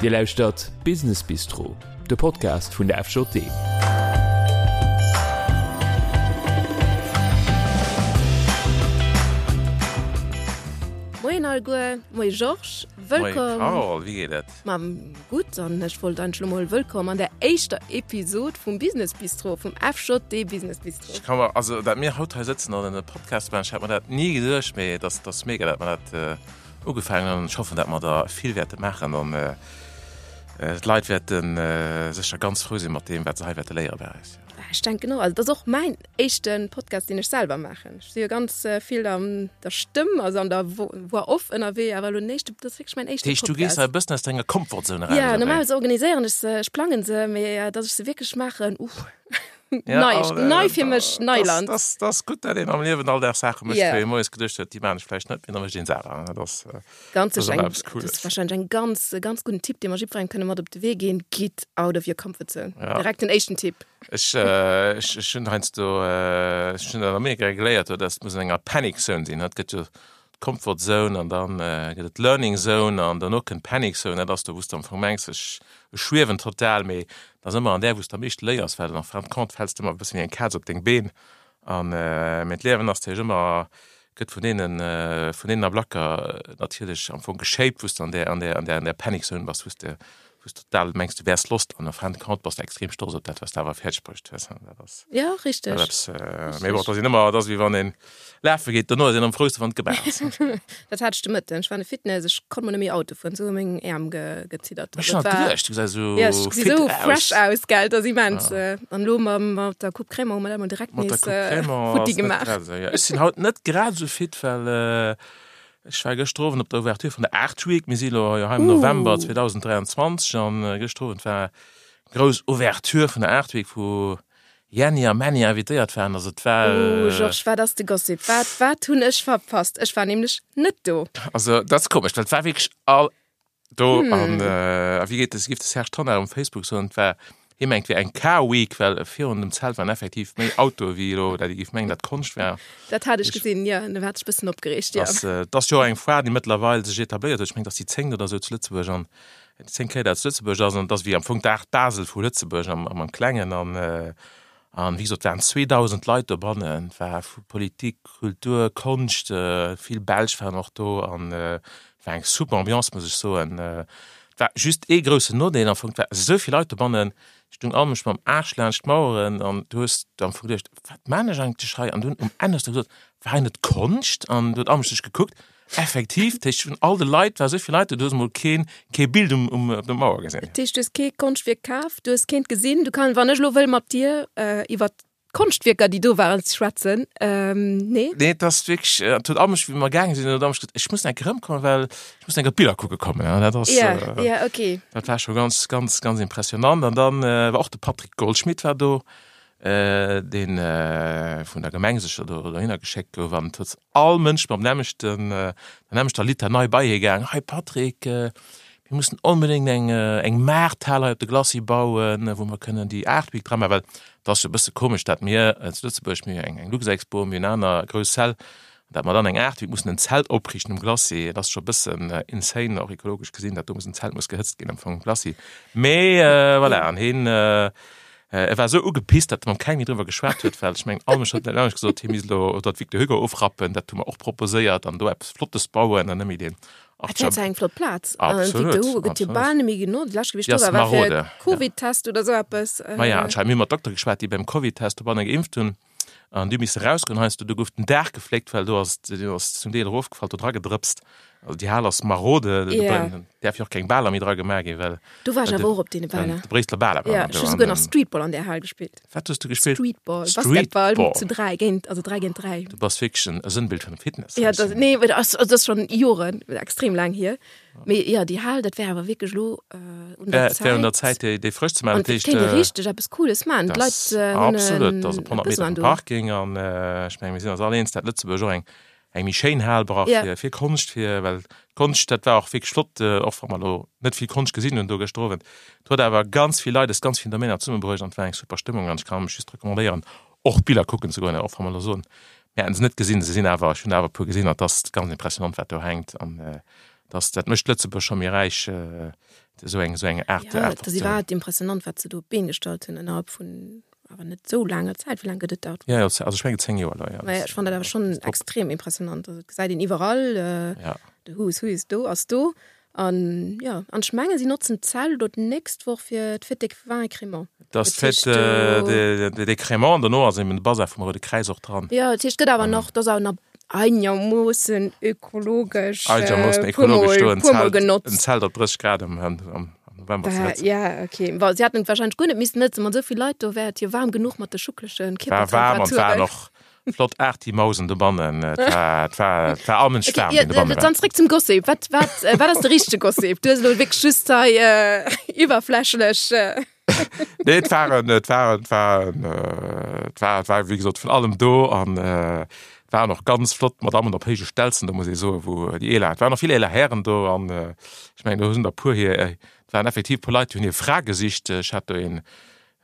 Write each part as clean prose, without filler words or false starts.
Dir lauschtert Business Bistro, de Podcast vun der FJD. Moien alleguer, moie Georges, wëllkomm. Moie Carole, wéi geet et? Ma gutt, an ech wollt eigentlech elo mol wëllkomm an der éischter Episod vum Business Bistro, vum FJD Business Bistro. Ech ka mer, also dat mir haut hei sëtzen an e Podcast maachen, ech hat mer dat ni geduecht, mee et ass, et ass mega, dat mer dat ugefaangen hunn an ech hoffen, dat mer der vill wäerte maachen an d'Leit wäerte sécher ganz frou sinn mat deem, wat se hei wäerte léiere bei eis. Ech denken och, also dat ass och mäin éischte Podcast, deen ech selwer maachen. Ech si jo ganz vill an der Stëmm, also an der Voix off ënnerwee, awer elo den éischte, dat ass wierklech mäin éischte Podcast. Dat heescht, du gees hei e bëssen aus denger Komfortzone eraus, oder wéi? Jo, normalerweis organiséieren ech se, ech plangen se, mee datt ech se wierklech maachen, uff, nei, nei fir mech, Neiland. Dat ass gutt, datt een am Liewen all Dag Saache mécht, wou ee moies geduecht huet, déi maachen ech vläicht net, mee da mécht een se awer. Dat ass Ganz sicher eng, dat ass wahrscheinlech eng ganz, ganz gudden Tipp, dee mer jiddwerengem kënne mat op de Wee ginn, Get out of your comfort zone. Ja. Direkt den éischten Tipp. Ech, äh, ech, ech hunn heiansdo, äh, ech hunn an Amerika geléiert, dass et muss an enger Panic Zone sinn. Et gëtt jo d'Comfort Zone an dann äh, gëtt et d'Learning Zone an derno kënnt d'Panic Zone. Dat ass do, wou s de am Fong mengs, ech, ech schwiewen total, mee dat ass ëmmer an där, wou s de am meeschte léiers, well en fin de compte fäls de ëmmer e bëssen wéi eng Kaz op deng Been. An, äh, mee d'Liewen ass natierlech ëmmer gëtt vun deenen, vun deenen Ablacker natierlech am Fong geshaped, wou s de an där, an där, an där, an där Panic Zone bass, wou s de, wou s de total mengs, du wäers lost an en fin de compte bass de extrem stolz op dat, wat s de awer fäerdeg bruecht hues. Dat ass Ja, richteg. dat eppes, mee bon, et ass een ëmmer, et ass wéi wann een lafe geet, dono ass een am frouste wann et gemaach ass. Dat hat ech de Mëtten. Ech war an de Fitness, ech konnt mol net méi Auto fueren, esou hu meng Äerm ge, geziddert. Ech hat geduecht, du gesäis esou Ja, ech gesi fit sou aus. fresh aus, gell, dat ass immens. An elo mam, mat der Coupe Crémant hu mer dat emol direkt Mat der nees Coupe Crémant futti ass net gemaach. grad esou, ja. Ech sinn haut net grad esou fit, well ech war gëschter Owend op der Ouverture vun der Art Week. Mir si elo jo hei am November 2023 an gëschter Owend war grouss Ouverture vun der Art Week, wou Jenny a Männi invitéiert waren. Also et war. Oh Georges, wat ass de Gossip? Wat, wat hunn ech verpasst? Ech war nämlech net do. Also dat ass komesch, well et war wierklech all do an a wéi geet de, géif de Serge Tonnar um Facebook soen, et war, hie mengt et wier eng Car Week, well virun dem Zelt waren effektiv méi Autoe wéi elo, dat ee géif mengen, dat Konscht war. Dat hat ech gesinn, jo, do hat ech e bëssen opgereegt, jo. Ass, et ass jo och eng Foire, déi mëttlerweil sech etabléiert huet. Ech mengen, et ass déi zéngt oder esou zu Lëtzebuerg an 10 Kéier dat zu Lëtzebuerg ass an et ass wéi am Fong d'Art Basel vu Lëtzebuerg am am Klengen an an wéi gesot waren 2.000 Leit dobannen, et war vu Politik, Kultur, Konscht, vill Belsch waren och do an et war eng super Ambiance muss ech soen. Et war just ee groussen Nodeel am Fong, et war esou vill Leit dobannen, ech stung all mech mam Aarsch laanscht d'Maueren an du hues am Fong geduecht, wat maan ech eigentlech hei an dunn um Enn hues de gesot, war hei net Konscht an du huet all mech sech gekuckt Effektiv, dat heescht vun all de Leit war esou vill Leit do, du hues emol keen, kee Bild um, um, op der Mauer gesinn. Dat heescht, du hues kee Konschtwierk kaf, du hues keent gesinn. Du kann, wann ech elo wëll mat dir iwwer d'Konschtwierker, déi do waren, schwätzen, nee? Nee, et ass wierklech, et huet all mech, wéi mer gaange sinn, huet all mech gesot, ech muss enk erëmkommen, well ech muss enk op d'Biller kucke kommen. An dat ass, Ja, ja, okay. dat war scho ganz, ganz, ganz impressionant. An dann war och de Patrick Goldschmidt war do, deen vun der Gemeng sécher do dohinner geschéckt gouf an et huet all Mënsch mam nämmlechten, der nämmlechter Litanei bei hie gaang, Hei Patrick, mir mussen onbedéngt eng eng Maarthal hei op de Glacis bauen, wou mer kënnen déi Art Week dra maachen, well et ass jo e bësse komesch, dat mir zu Lëtzebuerg, mir hu eng eng Luxexpo, mir hunn aner grouss Säll, dat mer dann eng Art Week mussen en Zelt opriichten um Glacis, dat ass scho e bëssen insane, och ekologesch gesinn, dat do muss en Zelt muss gehëtzt ginn am Fong um Glacis. Mee voilà, an hien E war esou ugepisst, datt e mam kengem méi driwwer geschwat huet, well ech mengen, all Mënsch huet net anescht gesot, hie misst elo oder d'Victor Hugo ofrappen, dat hu mer och proposéiert, an do eppes Flottes bauen an net méi deen Dat wär zwar eng flott Plaz. Absolut, Victor Hugo gëtt jo bal net méi genotzt. Déi lescht Kéier, wéi ech do war, war fir Covid-Test oder esou eppes. Maja, anscheinend. Mir hu mat Doktere geschwat, déi beim Covid-Test dobanne geimpft hunn. An déi hu misse rausgoen heiansdo, do gouf den Daach gefléckt, well do ass, deen ass zum Deel erofgefall, do dra gedrëpst. Also déi Hal ass marode, do Ja. däerf jo och keng Baler méi dra gemaach ginn, well Do war ech awer och op deene Baler. de Bréisseler Baler waren Ja, do ech hu an souguer nach den Streetball an där Hal gespillt. Wat hues du gespillt? Streetball, Basketball Streetball. zu 3 géint, also 3 géint 3. Du bass wierklech en e Sënnbild vun Fitness. Ja, dat, nee, dat ass, dat ass schonn Joren, extrem laang hier. Mee jo, déi Hal, dat wär awer wierklech elo un der Et wär un der Zäit. Zäit, déi, déi frësch ze maachen. An Dat et kéint ee richteg eppes Cooles maachen. Dat D'Leit ass hunn absolut, dat ass op e 100 Meter Besoin vum do. Parking an ech menge mir sinn eis all eens, dat Lëtzebuerg och eng, eng méi schéin Hal brauch Ja. fir, fir Konscht, fir, well d'Konscht, dat war och wierklech flott, och wa mer elo net vill Konscht gesinn hunn do gëschter Owend. Et huet awer ganz vill Leit aus ganz villen Domainer zesummebruecht an et war eng super Stëmmung an ech kann mech just recommandéieren, och d'Biller kucken ze goen, och wa mer elo soen, mir hätten se net gesinn, se sinn awer, ech hunn awer e puer gesinn an et ass ganz impressionant, wat do hänkt an. Dass dat mécht Lëtzebuerg scho méi räich, esou eng, esou eng Aart, Ja, Aart dat ass iwwerhaapt impressionant, wat se do op d'Been gestallt hunn innerhalb vun awer net esou laanger Zäit. Wéi laang gëtt et dat? Ja, also ech mengen 10 Joer elo, ja. Mä ech fannen dat awer schonn extrem impressionant. Also et gesäit een iwwerall, Ja. de Who is Who is do, ass do. An jo, an ech menge si notzen d'Zelt elo d'nächst Woch fir d'Fête des vins et crémants. Dat ass d'Fête des Crémants an dono ass eben de Bazar vum Roude Kräiz och dran. Jo, dat heescht, et gëtt awer nach, dat ass awer nach einermoossen ökologesch, Einermoossen puer mol, ökologesch do en puer mol Zelt, en genotzt. Zelt op 30 Grad am, am November ze hëtzen. Ja, okay. Bon, si hätten et warscheinlech guer net missen hëtzen, mat esou vill Leit do wär et jo waarm genuch mat de schucklege War waarm an war Kierpertemperaturen. och Flott Arty-Mausen dobannen. Et war, et war, et war allmens Okay, waarm, ja, wéi dobanne war. dann zréck zum Gossip. Wat, wat, äh, wat ass de richtege Gossip? Du hues elo wierklech just hei äh, iwwerflächlech. Äh. Nee, et waren, et waren, et waren, äh, et war, et war wéi gesot vun allem do an äh, et waren och ganz flott Madammen op héije Stelzen, do muss ee soen, wou déi eeler, et waren och vill eeler Hären do an äh, ech mengen, do hunn der puer hir, et waren effektiv puer Leit, déi hunn hir Fra gesicht. Ech hat do een,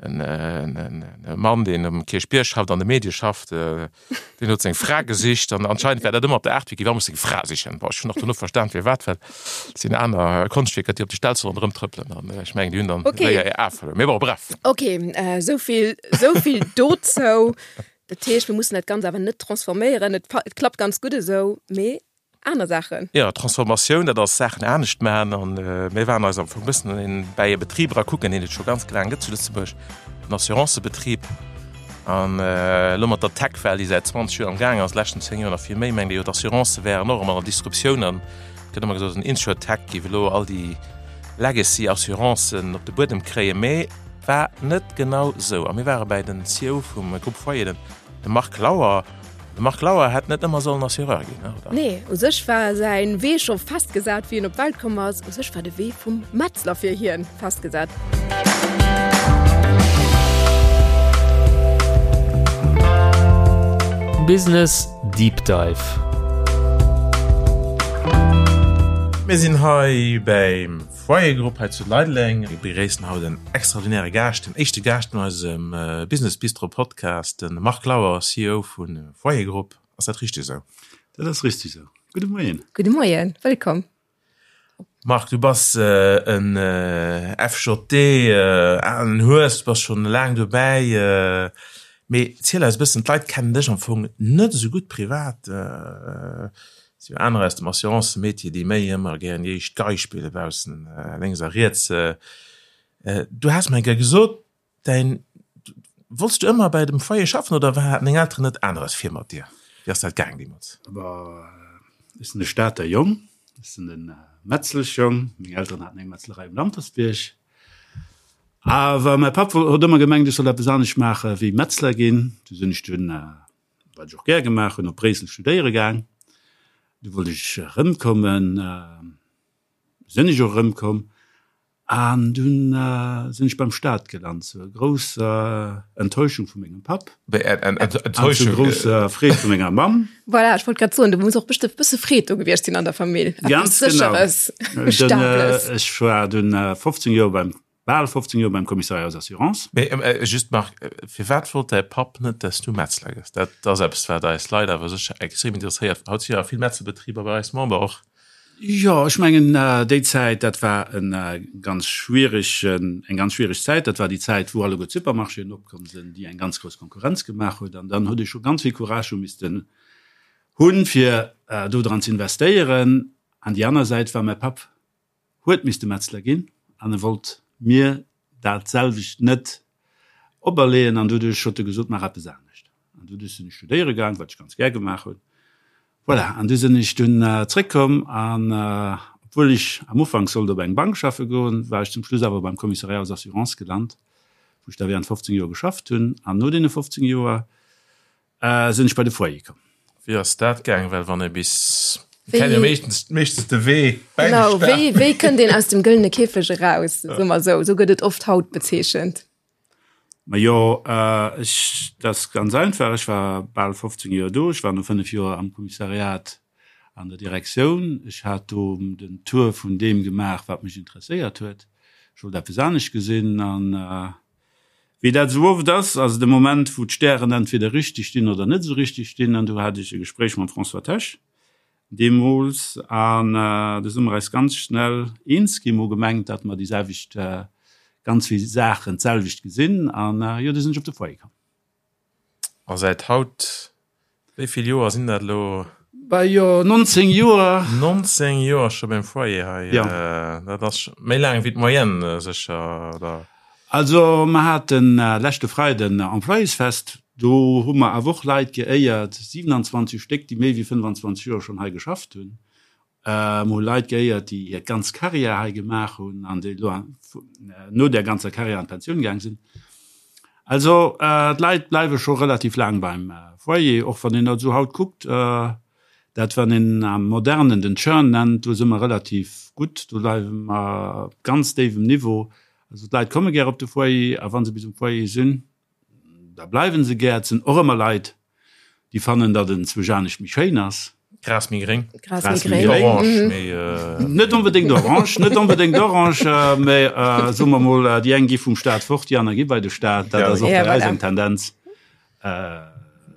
E Mann, deen um Kierchbierg schafft, an de Medie schafft, deen huet seng Fra gesicht an anscheinend war dat ëmmer op der Artwiki, wa muss seng Fra sichen. Bon, ech hunn och dono verstan firwat, well et sinn aner Konschtwierker, déi op de Stelze ronderëm trëppelen an ech mengen, déi hunn dann Okay. séier hir Ae verluer. Mee bon, bref. Ok, esou vill, esou vill dozou. Dat heescht, mir mussen dat Ganzt awer net transforméieren. Et et klappt ganz gutt esou, mee aner Saachen. Jo, Transformatioun, dat ass Saachen anescht maachen. An mir waren eis am Fong e bëssen bäi e Betrib era kucken, deen et scho ganz laang gëtt zu Lëtzebuerg, en Assurancëbetrib. An elo mat der Tech-Well, déi säit 20 Joer am Gaang ass, leschten 10 Joer nach vill méi, mengt ee jo, d'Assurancë wären och ëmmer an der Disruptioun. An et gëtt ëmmer gesot, en Insurtech géif elo all déi Legacy-Assurancen op de Buedem kréien. Mee war net genau esou. A mir ware bäi den CEO vum Groupe Foyer, de Marc Lauer. De Marc Lauer hätt net ëmmer sollen Assureur ginn, oder? Nee, u sech war säin Wee scho festgesat, wéi en op d'Welt komm ass. U sech war de Wee vum Metzler fir hien festgesat. Business Deep Dive. Mir sinn hei beim Foyer Group hei zu Leideleng. Mir begréissen haut en extraordinäre Gaascht, den éischte Gaascht an eisem Business Bistro Podcast, de Marc Lauer, CEO vu Foyer Group. Ass dat richteg esou? Dat ass richteg esou. Gudde Moien. Gudde Moien, wëllkomm. Marc, du bass en FJD, alen Hues, du bass schonn laang dobäi. Mee ziel eis e bëssen, d'Leit kennen dech am Fong net esou gutt privat. Et si jo anerer aus dem Assurancemetier, déi méi ëmmer gären déi éischt Gei spille baussen lénks a riets. Du has mer eng Kéier gesot, däin, wollts du ëmmer bei dem Foyer schaffen oder haten deng Elteren net aneres vir mat dir? Wéi ass dat gaang deemools? Ech sinn e Stater Jong, ech sinn e Metzleschjong. Meng Elteren haten eng Metzlerei um Lampertsbierg. Awer mäi Papp huet ëmmer gemengt, ech soll eppes anescht maache wéi Metzler ginn. Du sinn ech dunn wat ech och gär gemaach hunn, op Bréissel studéiere gaang. Du wollt ech erëmkommen, sinn ech och erëmkomm an dunn sinn ech beim Staat gelant, zur grousser Enttäuschung vu mengem Papp an zur grousser Freed vu menger Mamm. Voilà, ech wollt grad soen, do muss och bestëmmt bësse Freed do gewiescht sinn an der Famill. Ganz genau. Sécheres, Ech war dunn 15 Joer beim Bal 15 Joer beim Commissariat aux Assurances. Mee just Marc, firwat wollt däi Papp net, dass du Metzler gëss? Dat ass eppes, wat eis Leit awer sécher extrem interesséiert. Haut si jo vill Metzlerbetriber bei eis Member och. Jo, ech mengen déi Zäit, dat war e ganz schwieregen, eng ganz schwiereg Zäit. Dat war déi Zäit, wou alleguer d'Supermarchéen opkomm sinn, déi eng ganz grouss Konkurrenz gemaach huet. An dann huet ee scho ganz vill Courage hu missten hunn, fir do dran ze investéieren. An déi aner Säit war mäi Papp huet misste Metzler ginn an e wollt mir dat selwecht net operleeën an doduerch huet e gesot, maach eppes anescht. An doduerch sinn ech studéiere gaang, wat ech ganz gär gemaach hunn. Voilà, an du sinn ech dunn zréckkomm an obwuel ech am Ufank sollt op eng Bank schaffe goen, war ech zum Schluss awer beim Commissariat aux Assurances gelant, wou ech da während 15 Joer geschafft hunn. An no deene 15 Joer Sinn ech bei de Foyer komm. Wéi ass dat gaang? Well wann ee bis, kennt jo meeschtens meeschtens de Wee bäi de Genau, wéi, wéi kënnt een aus dem gëllene Käfeg eraus, soe mer esou. Esou gëtt et oft haut bezeechent. Majo, ech, dat ass ganz einfach, ech war bal 15 Joer do. Ech war no 5 Joer am Kommissariat an der Direktioun. Ech hat do den Tour vun deem gemaach, wat mech interesséiert huet. Ech wollt eppes anescht gesinn an Wéi dat esou oft ass, ass et e Moment, wou d'Stären entweder richteg stinn oder net esou richteg stinn. An do hat ech e Gespréich mam François Tesch. Deemools. An du si mer eis ganz schnell eens ginn. Mer hu gemengt, datt mer déi selwecht, ganz vill Saachen d'selwecht gesinn. An jo, du sinn ech op de Foyer komm. A säit haut, wéi vill Joer sinn dat elo? Bah jo, 19 Joer. 19 Joer scho beim Foyer hei. Jo. Dat ass méi laang wéi d'Moyenne sécher, oder? Also mer haten leschte Freiden Employésfest, do hu mer awer och Leit geéiert, 27 Stéck, déi méi wéi 25 Joer schonn hei geschafft hunn. Mer hu Leit geéiert, déi hir ganz Karriär hei gemaach hunn an déi elo no där ganzer Karriär an d'Pensioun gaang sinn. Also d'Leit bleiwe scho relativ laang beim Foyer, och wann een dat esou haut kuckt, dat wann een am Modernen den Churn nennt, do si mer relativ gutt, do bleiwe mer op ganz déiwem Niveau. Also d'Leit komme gär op de Foyer a wa se bis um Foyer sinn, da bleiwe se gär. Et sinn och ëmmer Leit, déi fannen, datt en zwousch anescht méi schéin ass. Gras méi gréng. Gras méi gréng. Orange méi. Net onbedéngt orange, net onbedéngt orange, mä soe mer mol, déi eng gi vum Staat fort, déi aner gi bei de Staat. Dat ass och bei eis eng Tendenz.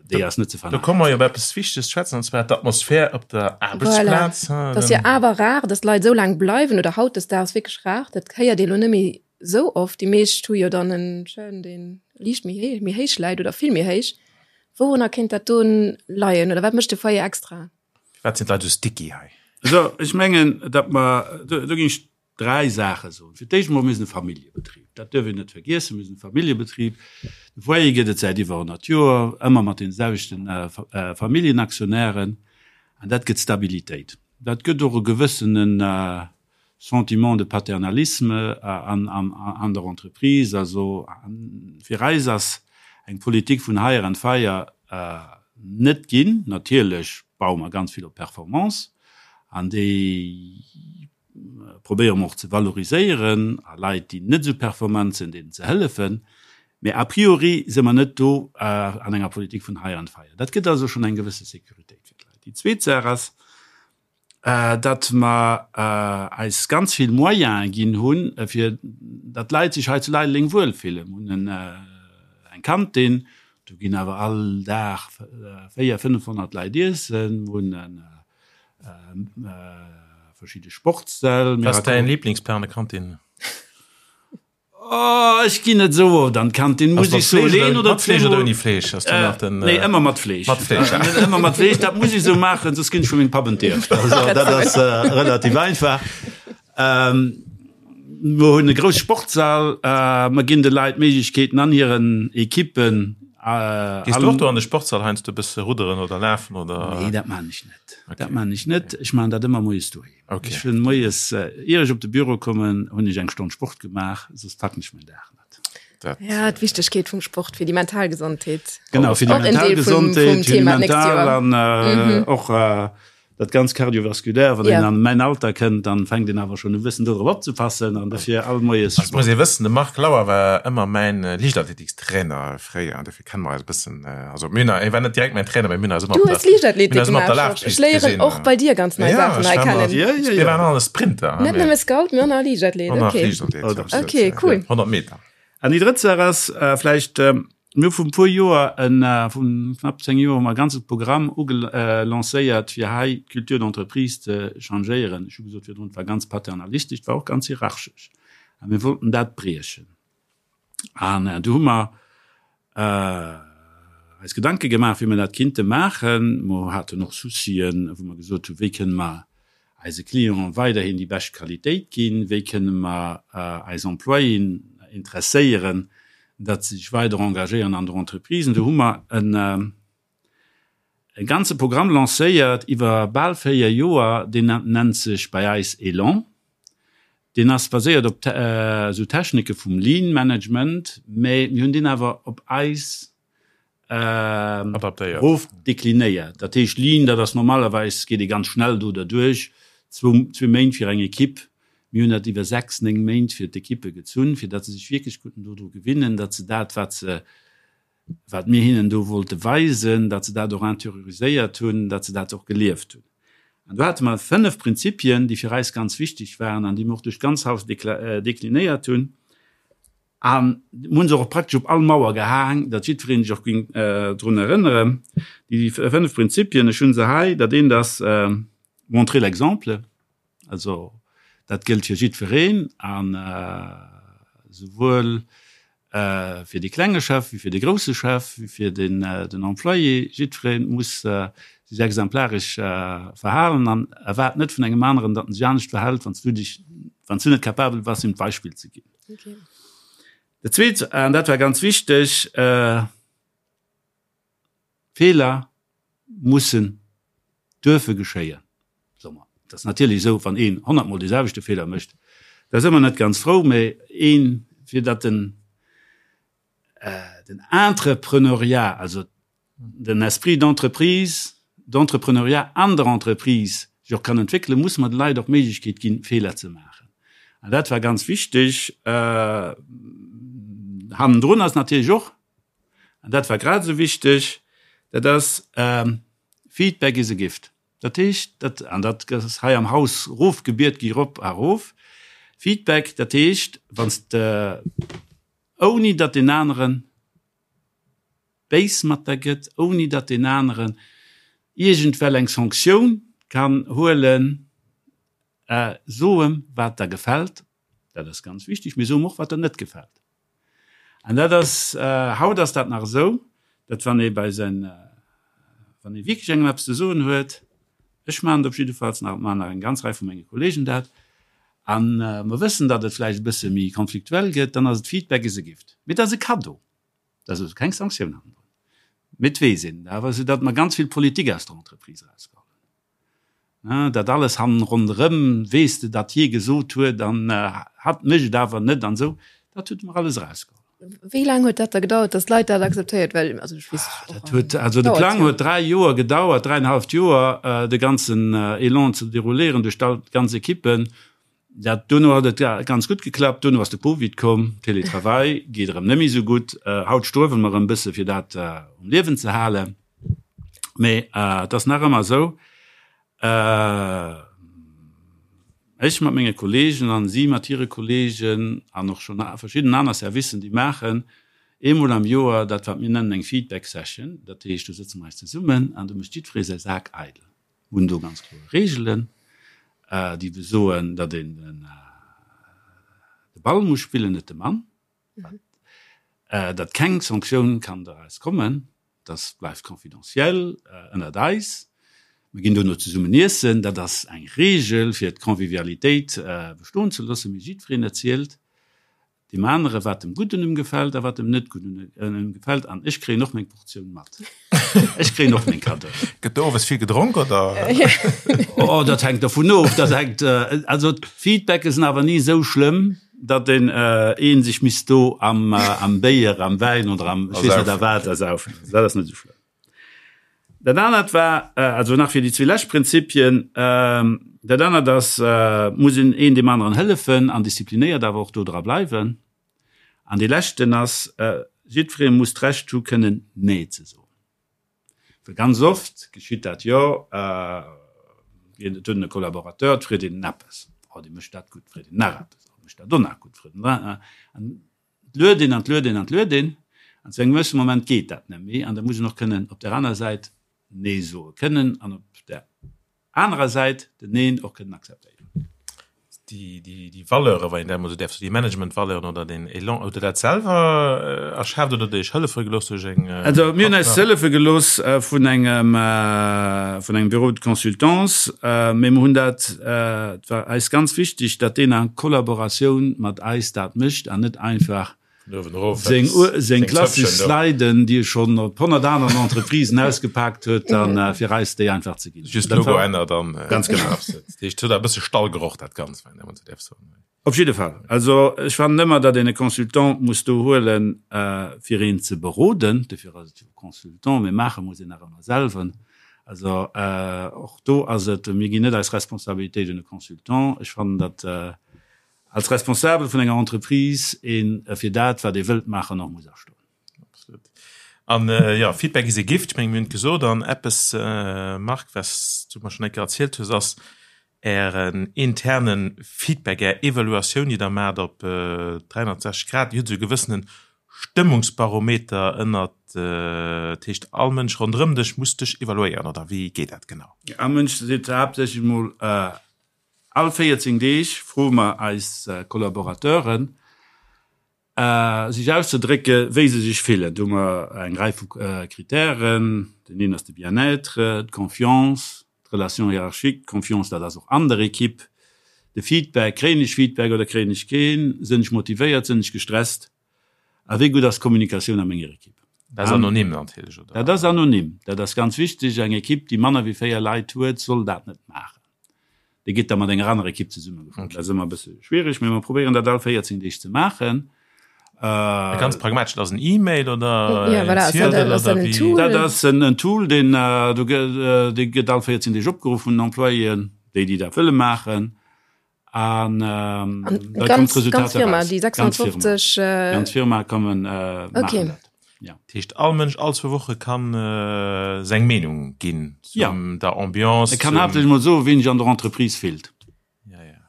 Déi ass net ze verneinen. Do komme mer jo op eppes Wichteges ze schwätzen, an zwar d'Atmosphär op der Aarbechtsplaz. Voilà. Dat ass jo awer rar, dass Leit esou laang bleiwen, oder hautdesdaags wierklech rar. Dat héiert ee lo net méi esou oft. Déi meescht hu jo dann en Churn, dee liicht méi héich, méi héich läit oder vill méi héich. Wourunner kéint dat do leien oder wat mécht de Foyer extra? Firwat sinn d'Leit esou sticky hei? Also ech mengen, datt mer, do ginn ech Dräi Saache soen. Fir d'éischt emol, mir sinn e Familljebetrib. Dat duerf een net vergiessen. Mir sinn e Familljebetrib. De Foyer gëtt et säit iwwer 100 Joer, ëmmer mat deene selwechte Familljenaktionären. An dat gëtt Stabilitéit. Dat gëtt och e gewëssene Sentiment de paternalisme an der Entreprise. Also fir eis ass eng Politik vun Hire and Fire net ginn. Natierlech baue mer ganz vill op Performance an déi probéiere mer och ze valoriséieren a Leit, déi net esou performant sinn, deenen ze hëllefen. Mee a priori si mer net do an enger Politik vun Hire and Fire. Dat gëtt also schonn eng gewësse Sécuritéit fir d'Leit. Déi zweet Saach ass, datt mer eis ganz vill Moyene ginn hunn, fir datt d'Leit sech hei zu Leideleng wuelfillen. Mer hunn eng Kantin, do ginn awer all Dag 400, 500 Leit iessen. Mer hunn verschidde Sportssäll. Wat ass däin Lieblingsplat an der Kantin? Oh, ech ginn net esou oft an d'Kantin, muss ech soen. Een oder mat Fleesch oder ouni Fleesch? Ass do nach den, Nee, ëmmer mat Fleesch. Mat Fleesch, ja. Ëmmer mat Fleesch, dat muss ech esou maachen, soss ginn ech vu mengem Papp entierft. Also dat ass relativ einfach. Mer hunn e grousse Sportssall, mer ginn de Leit d'Méiglechkeeten an hiren Ekippen. Gees du och do an de Sportssall heiansdo e bësse rudderen oder lafen oder? Nee, dat maachen ech net. Dat maachen ech net. Ech maachen dat ëmmer moies doheem. Ech hunn moies, ier ech op de Büro kommen, hunn ech eng Stonn Sport gemaach, soss packen ech mäin Dag net. Ja, d'Wichtegkeet vum Sport fir déi mental Gesondheet. Genau, fir déi mental Gesondheet, fir déi mental an och Dat ganz Cardiovasculaire, wann een an mäin Alter kënnt, dann fänkt een awer schonn u bëssen dodrop opzepassen an dofir all moies Sport. Muss ee wëssen, de Marc Lauer war ëmmer mäin Liichtathletikstrainer fréier an dofir kenne mer eis e bëssen. Also mir hunn, hie war net direkt mäin Trainer, mee mir hunn eis ëmmer op der, Du hues Liichtathletik gemaach, Georges. Ech léieren och bei dir ganz nei Saachen hei kennen. Jo, ech war, mir waren alle Sprinter. Net nëmme Scout, mee och nach Liichtathlet, okay. Och nach Liichtathlet, jo. Okay, cool. 100 Meter. An déi drëtt Saach ass vläicht, Mir hu vun e puer Joer, vu knapp 10 Joer, hu mer e ganze Programm ugelancéiert, fir hei d'Culture d'entreprise ze changéieren. Ech hu gesot virdrun, et war ganz paternalistesch, et war och ganz hierarchesch. A mir wollten dat briechen. An du hu mer eis Gedanke gemaach, wéi mer dat kinnte maachen. Mer haten och Soucien, wou mer gesot hunn, wéi kënne mer eise Clienten weiderhin déi bescht Qualitéit ginn? Wéi kënne mer eis Employéen interesséieren, datt se sech weider engagéieren an der Entreprise? Do hu mer e ganze Programm lancéiert iwwer bal 4 Joer, deen nennt sech bei eis Elan. Deen ass baséiert op esou Technike vum Lean Management, mä mir hunn deen awer op eis Adaptéiert. Rof deklinéiert. Dat heescht Lean, dat ass normalerweis, geet ee ganz schnell do derduerch, zwou, zwee Méint fir eng Ekipp. Mir hunn dat iwwer sechs, néng Méint fir d'Ekippe gezunn, fir datt se sech wierklech konnten dodru gewinnen, datt se dat, wat se, wat mir hinnen do wollte weisen, datt se dat och interioriséiert hunn, datt se dat och gelieft hunn. An do hate mer fënnef Prinzipien, déi fir eis ganz wichteg waren an déi mir och duerch d'ganz Haus deklinéiert hunn. An mir hunn se och praktesch op all Mauer gehaang, datt jiddweree sech och géing drun erënneren. Déi fënnef Prinzipien, ech hu se hei, dat eent ass. Montrer l'exemple, also dat gëllt fir jiddwereen an souwuel fir dee klenge Chef wéi fir de grousse Chef, wéi fir den Employé. Jiddweree muss sech exemplaresch verhalen an erwaart net vun engem aneren, datt en sech anescht verhält, wann s du dech, wann s du net capabel bass, him d'Beispill ze ginn. Dat Zweet, an dat war ganz wichteg, Feeler mussen duerfe geschéien, soe mer. Et ass natierlech esou, wann een honnertmol dee selwechte Feeler mécht, da si mer net ganz frou, mä een, fir datt den, den Entrepreneuriat, also den Esprit d'entreprise, d'Entrepreneuriat an der Entreprise sech och kann entwéckelen, musse mer de Leit och d'Méiglechkeet ginn, Feeler ze maachen. An dat war ganz wichteg. Hannendrun ass natierlech och, An dat war grad esou wichteg, dat ass, Feedback is a gift. Dat heescht, dat, an dat ass hei am Haus erofgebiet gi rop a erof, Feedback, dat heescht, wann s de, ouni datt deen anere béis mat der gëtt, ouni datt deen aneren iergendwell eng Sanktioun kann huelen, so em, wat der gefält, dat ass ganz wichteg, mee so em och, wat der net gefält. An dat ass, haut ass dat nach esou, datt wann ee bei säin, wann ee wierklech engem eppes ze soen huet, ech maachen et op jiddefalls nach, et maachen nach eng ganz Rei vu menge Kollegen dat, a mer wëssen, datt et vläicht e bësse méi konfliktuell gëtt, dann ass et Feedback is a gift. Mee dat ass e Kaddo, dat ass also keng Sanktioun hannendrun. Mee et weess een awer, soudatt mer ganz vill Politik aus der Entreprise erausgeholl hunn. Dat alles hannen ronderëm, weess de, datt hie gesot huet an hatt mécht et awer net an esou, dat huet mer alles erausgeholl. Wéi laang huet dat da gedauert, datt d'Leit dat akzeptéiert? Well also ech weess och. Dat huet, also de Plang huet 3 Joer gedauert, dräienhaleft Joer, de ganzen Elan ze derouléieren duerch all d'ganz Ekippen. Dat duerno huet et ganz gutt geklappt. Duerno ass de Covid komm, Télétravail geet erëm net méi esou gutt. Haut struewele mer erëm e bësse fir dat um Liewen ze halen. Mee et ass nach ëmmer esou, ech mat menge Kolleegen an si mat hire Kolleegen an och schonn verschidden aner Servicen, déi maachen eemol am Joer dat wat mir nennen eng Feedback Session. Dat heescht, do sëtze mer eis zesummen an do mécht jiddweree säi Sak eidel. Mir hunn do ganz kloer Reegelen, déi besoen, datt een de Ball muss spillen, net de Mann. Datt keng Sanktioun kann doraus kommen, dat bleift confidentiel ënnert eis. Mir ginn dono zesummen iessen, dat ass eng Reegel, fir d'Convivialitéit bestoen ze loossen. Mee jiddwereen erzielt deem anere wat em gutt un em gefält a wat em net gutt un em gefält. An ech kréien och meng Portioun mat. Ech kréien och meng Kaddoen. Gëtt do owes vill gedronk oder? Oh, dat hänkt dovun of. Dat hänkt, also d'Feedbacke sinn awer ni esou schlëmm, datt een een sech misst do am am Béier, am Wäin oder am ech weess net a wat ersaufen. Dat ass net esou schlëmm. Dat anert war, also nach fir déi zwee lescht Prinzipien, dat anert ass, muss een een deem aneren hëllefen an disziplinéiert awer och do dra bleiwen. An dee leschten ass, jiddweree muss d'Recht hu kënnen Nee ze soen. Well ganz oft geschitt dat jo, et huet een e Collaborateur, et freet een en eppes, oh dee mécht dat gutt, freet een nach eppes, oh mécht dat och nach gutt, freet en nach, an et luet een an et luet een an et luet een, an zu engem gewësse Moment geet dat net méi an da muss een och kënnen op där aner Säit Nee soe kënnen an op där anerer Säit den Neen och kënnen akzeptéieren. Déi, déi, déi Valeuren, wann een dat emol esou däerf soen, déi Management-Valeuren oder den Elan, hutt Der dat selwer erschaaft oder hutt Der Iech hëllefe gelooss duerch eng Also mir hunn eis hëllefe gelooss vun engem, vun engem Bureau de consultance, mee mir hunn dat, et war eis ganz wichteg, datt deen a Kollaboratioun mat eis dat mécht an net einfach Seng, seng klassesch Sliden, déi e schonn op 100 aneren Entreprisen ausgepaakt huet, an fir eis déi einfach ze ginn. Just Logo ännert an ganz genau. Dat heescht, et huet e bësse Stallgeroch dat Ganzt, wann een esou däerf soen. Op jidde Fall. Also ech fannen ëmmer, datt een e Consultant muss do huelen, fir een ze beroden. Dofir ass et jo e Consultant, mee maache muss een nach ëmmer selwer. Also och do ass et, mir ginn net eis Responsabilitéit un e Consultant. Ech fannen, datt Als Responsabel vun enger Entreprise een fir dat, wat ee wëllt maachen, och muss astoen. Absolut. An jo, Feedback is a gift, ech mengen, mir hunn et gesot. An eppes, Marc, wat s du mer schonn eng Kéier erzielt hues, ass Ären interne Feedback, Är Evaluatioun, déi Der maacht op 360 Grad, déi huet esou e gewëssene. Stëmmungsbarometer ënnert, dat heescht all Mënsch ronderëm dech muss dech evaluéieren, oder wéi geet dat genau? All Mënsch seet haaptsächlech emol, all 14 Deeg froe mer eis Collaborateuren, sech auszedrécke wéi se sech fillen. Do hu mer eng Rei vu Kritären, deen een ass de Bien-être, d'Confiance, d'Relation hiérarchique, d'Confiance, dat ass och an der Equipe, de Feedback, kréien ech Feedback oder kréien ech keen, sinn ech motivéiert, sinn ech gestresst a wéi gutt ass d'Kommunikatioun a menger Equipe. Dat ass anonym natierlech, oder? Dat ass anonym, dat ass ganz wichteg. Eng Equipe, déi manner wéi 4 Leit huet, soll dat net maachen. Déi gëtt da mat enger anerer Equipe zesummegefuer. Dat ass ëmmer e bësse schwiereg, mee mer probéieren dat all 14 Deeg ze maachen. Ganz pragmatesch, dat ass en E-Mail oder ja, voilà, ass dat, ass dat en Tool? Dat ass en Tool, deen do dee gëtt all 14 Deeg opgeruff vun den Employéen, déi déi dat wëlle maachen. An da kommt d'Resultat eraus. Déi 650 Ganz Firma kommen maachen dat. Ja. Dat heescht all Mënsch all zwou Woche kann seng Meenung ginn zum der Ambiance. E kann haaptsächlech mol soen, wéi en sech an der Entreprise fillt.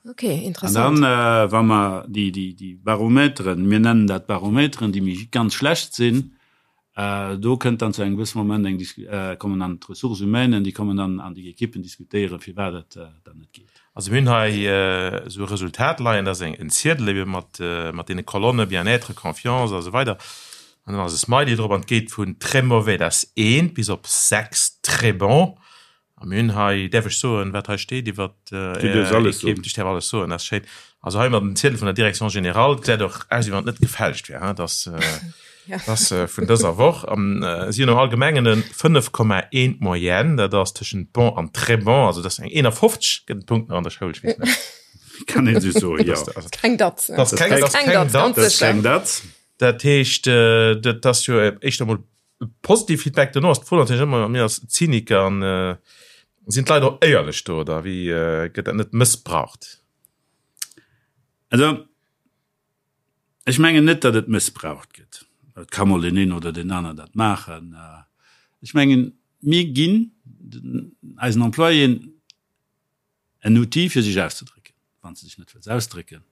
Ok, interessant. An dann, wa mer déi, déi, déi Barometeren, mir nennen dat Barometeren, déi méi ganz schlecht sinn, do kënnt dann zu engem gewësse Moment eng Dis-, kommen dann d'Ressources humaines, déi kommen dann an déi Ekippen diskutéieren, firwat et dann net geet. Also mir hunn hei esou e Resultat leien, dat ass eng, en Ziedel ebe mat, mat deene Kolonne Bien-être, Confiance a sou weider an dann ass e Smiley drop an et geet vun très mauvais, dat ass eent, bis op 6, très bon. A mir hunn hei, däerf ech soen, wat hei steet iwwer Du däerfs alles soen. Ech däerf alles soen, dat ass schéin. Also hei mat dem Ziedel vun der Direction générale, et gesäit och aus, wéi wann et net gefälscht wär, hein, dass dass vun dëser Woch. An si hunn am Allgemengen e 5,1 Moyenne, dat ass tëschent bon an très bon, also dat ass eng 51, gëtt en Punkt nach an der Schoul, ech weess net. Kann een esou soen, jo. Dat ass keng Datz. Dat ass keng Datz, ganz sécher. Keng Datz. Dat heescht, dat ass jo éischter emol Positiv Feedback dono ass d'Fro natierlech ëmmer, mir als Zyniker an sinn d'Leit och éierlech do oder wéi gëtt dat net mëssbraucht? Also ech mengen net, datt et mëssbraucht gëtt. Et ka mol deen een oder deen aner dat maachen. Ech mengen, mir ginn eisen Employéen En Outil fir sech auszedrécken. Wann s de dech net wëlls ausdrécken,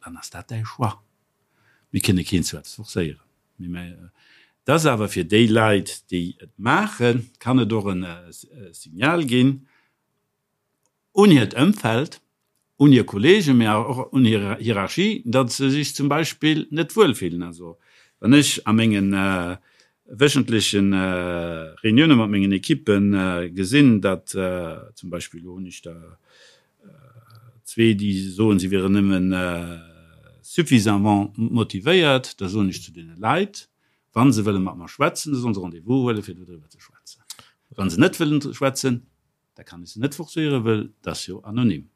dann ass dat däi Choix. Mir kënne keen zu eppes forcéieren. Mee et ass awer fir déi Leit, déi et maachen, kann et och e Signal ginn un hiert Ëmfeld, un hir Kollegen, mee awer och un hir Hierarchie, datt se sech zum Beispill net wuel fillen. Also wann ech a mengen wéchentleche Reunioune mat mengen Ekippe gesinn, datt zum Beispill, elo hunn ech der zwee, déi soen, si wieren nëmme suffisamment motivéiert, da soen ech zu deene Leit, wa se wëlle mat mer schwätzen, da sollen se Rendez-vous huelen, fir dodriwwer ze schwätzen. Wa se net wëllen schwätzen, Da kann ech se net forcéieren, wëll dat ass jo anonym.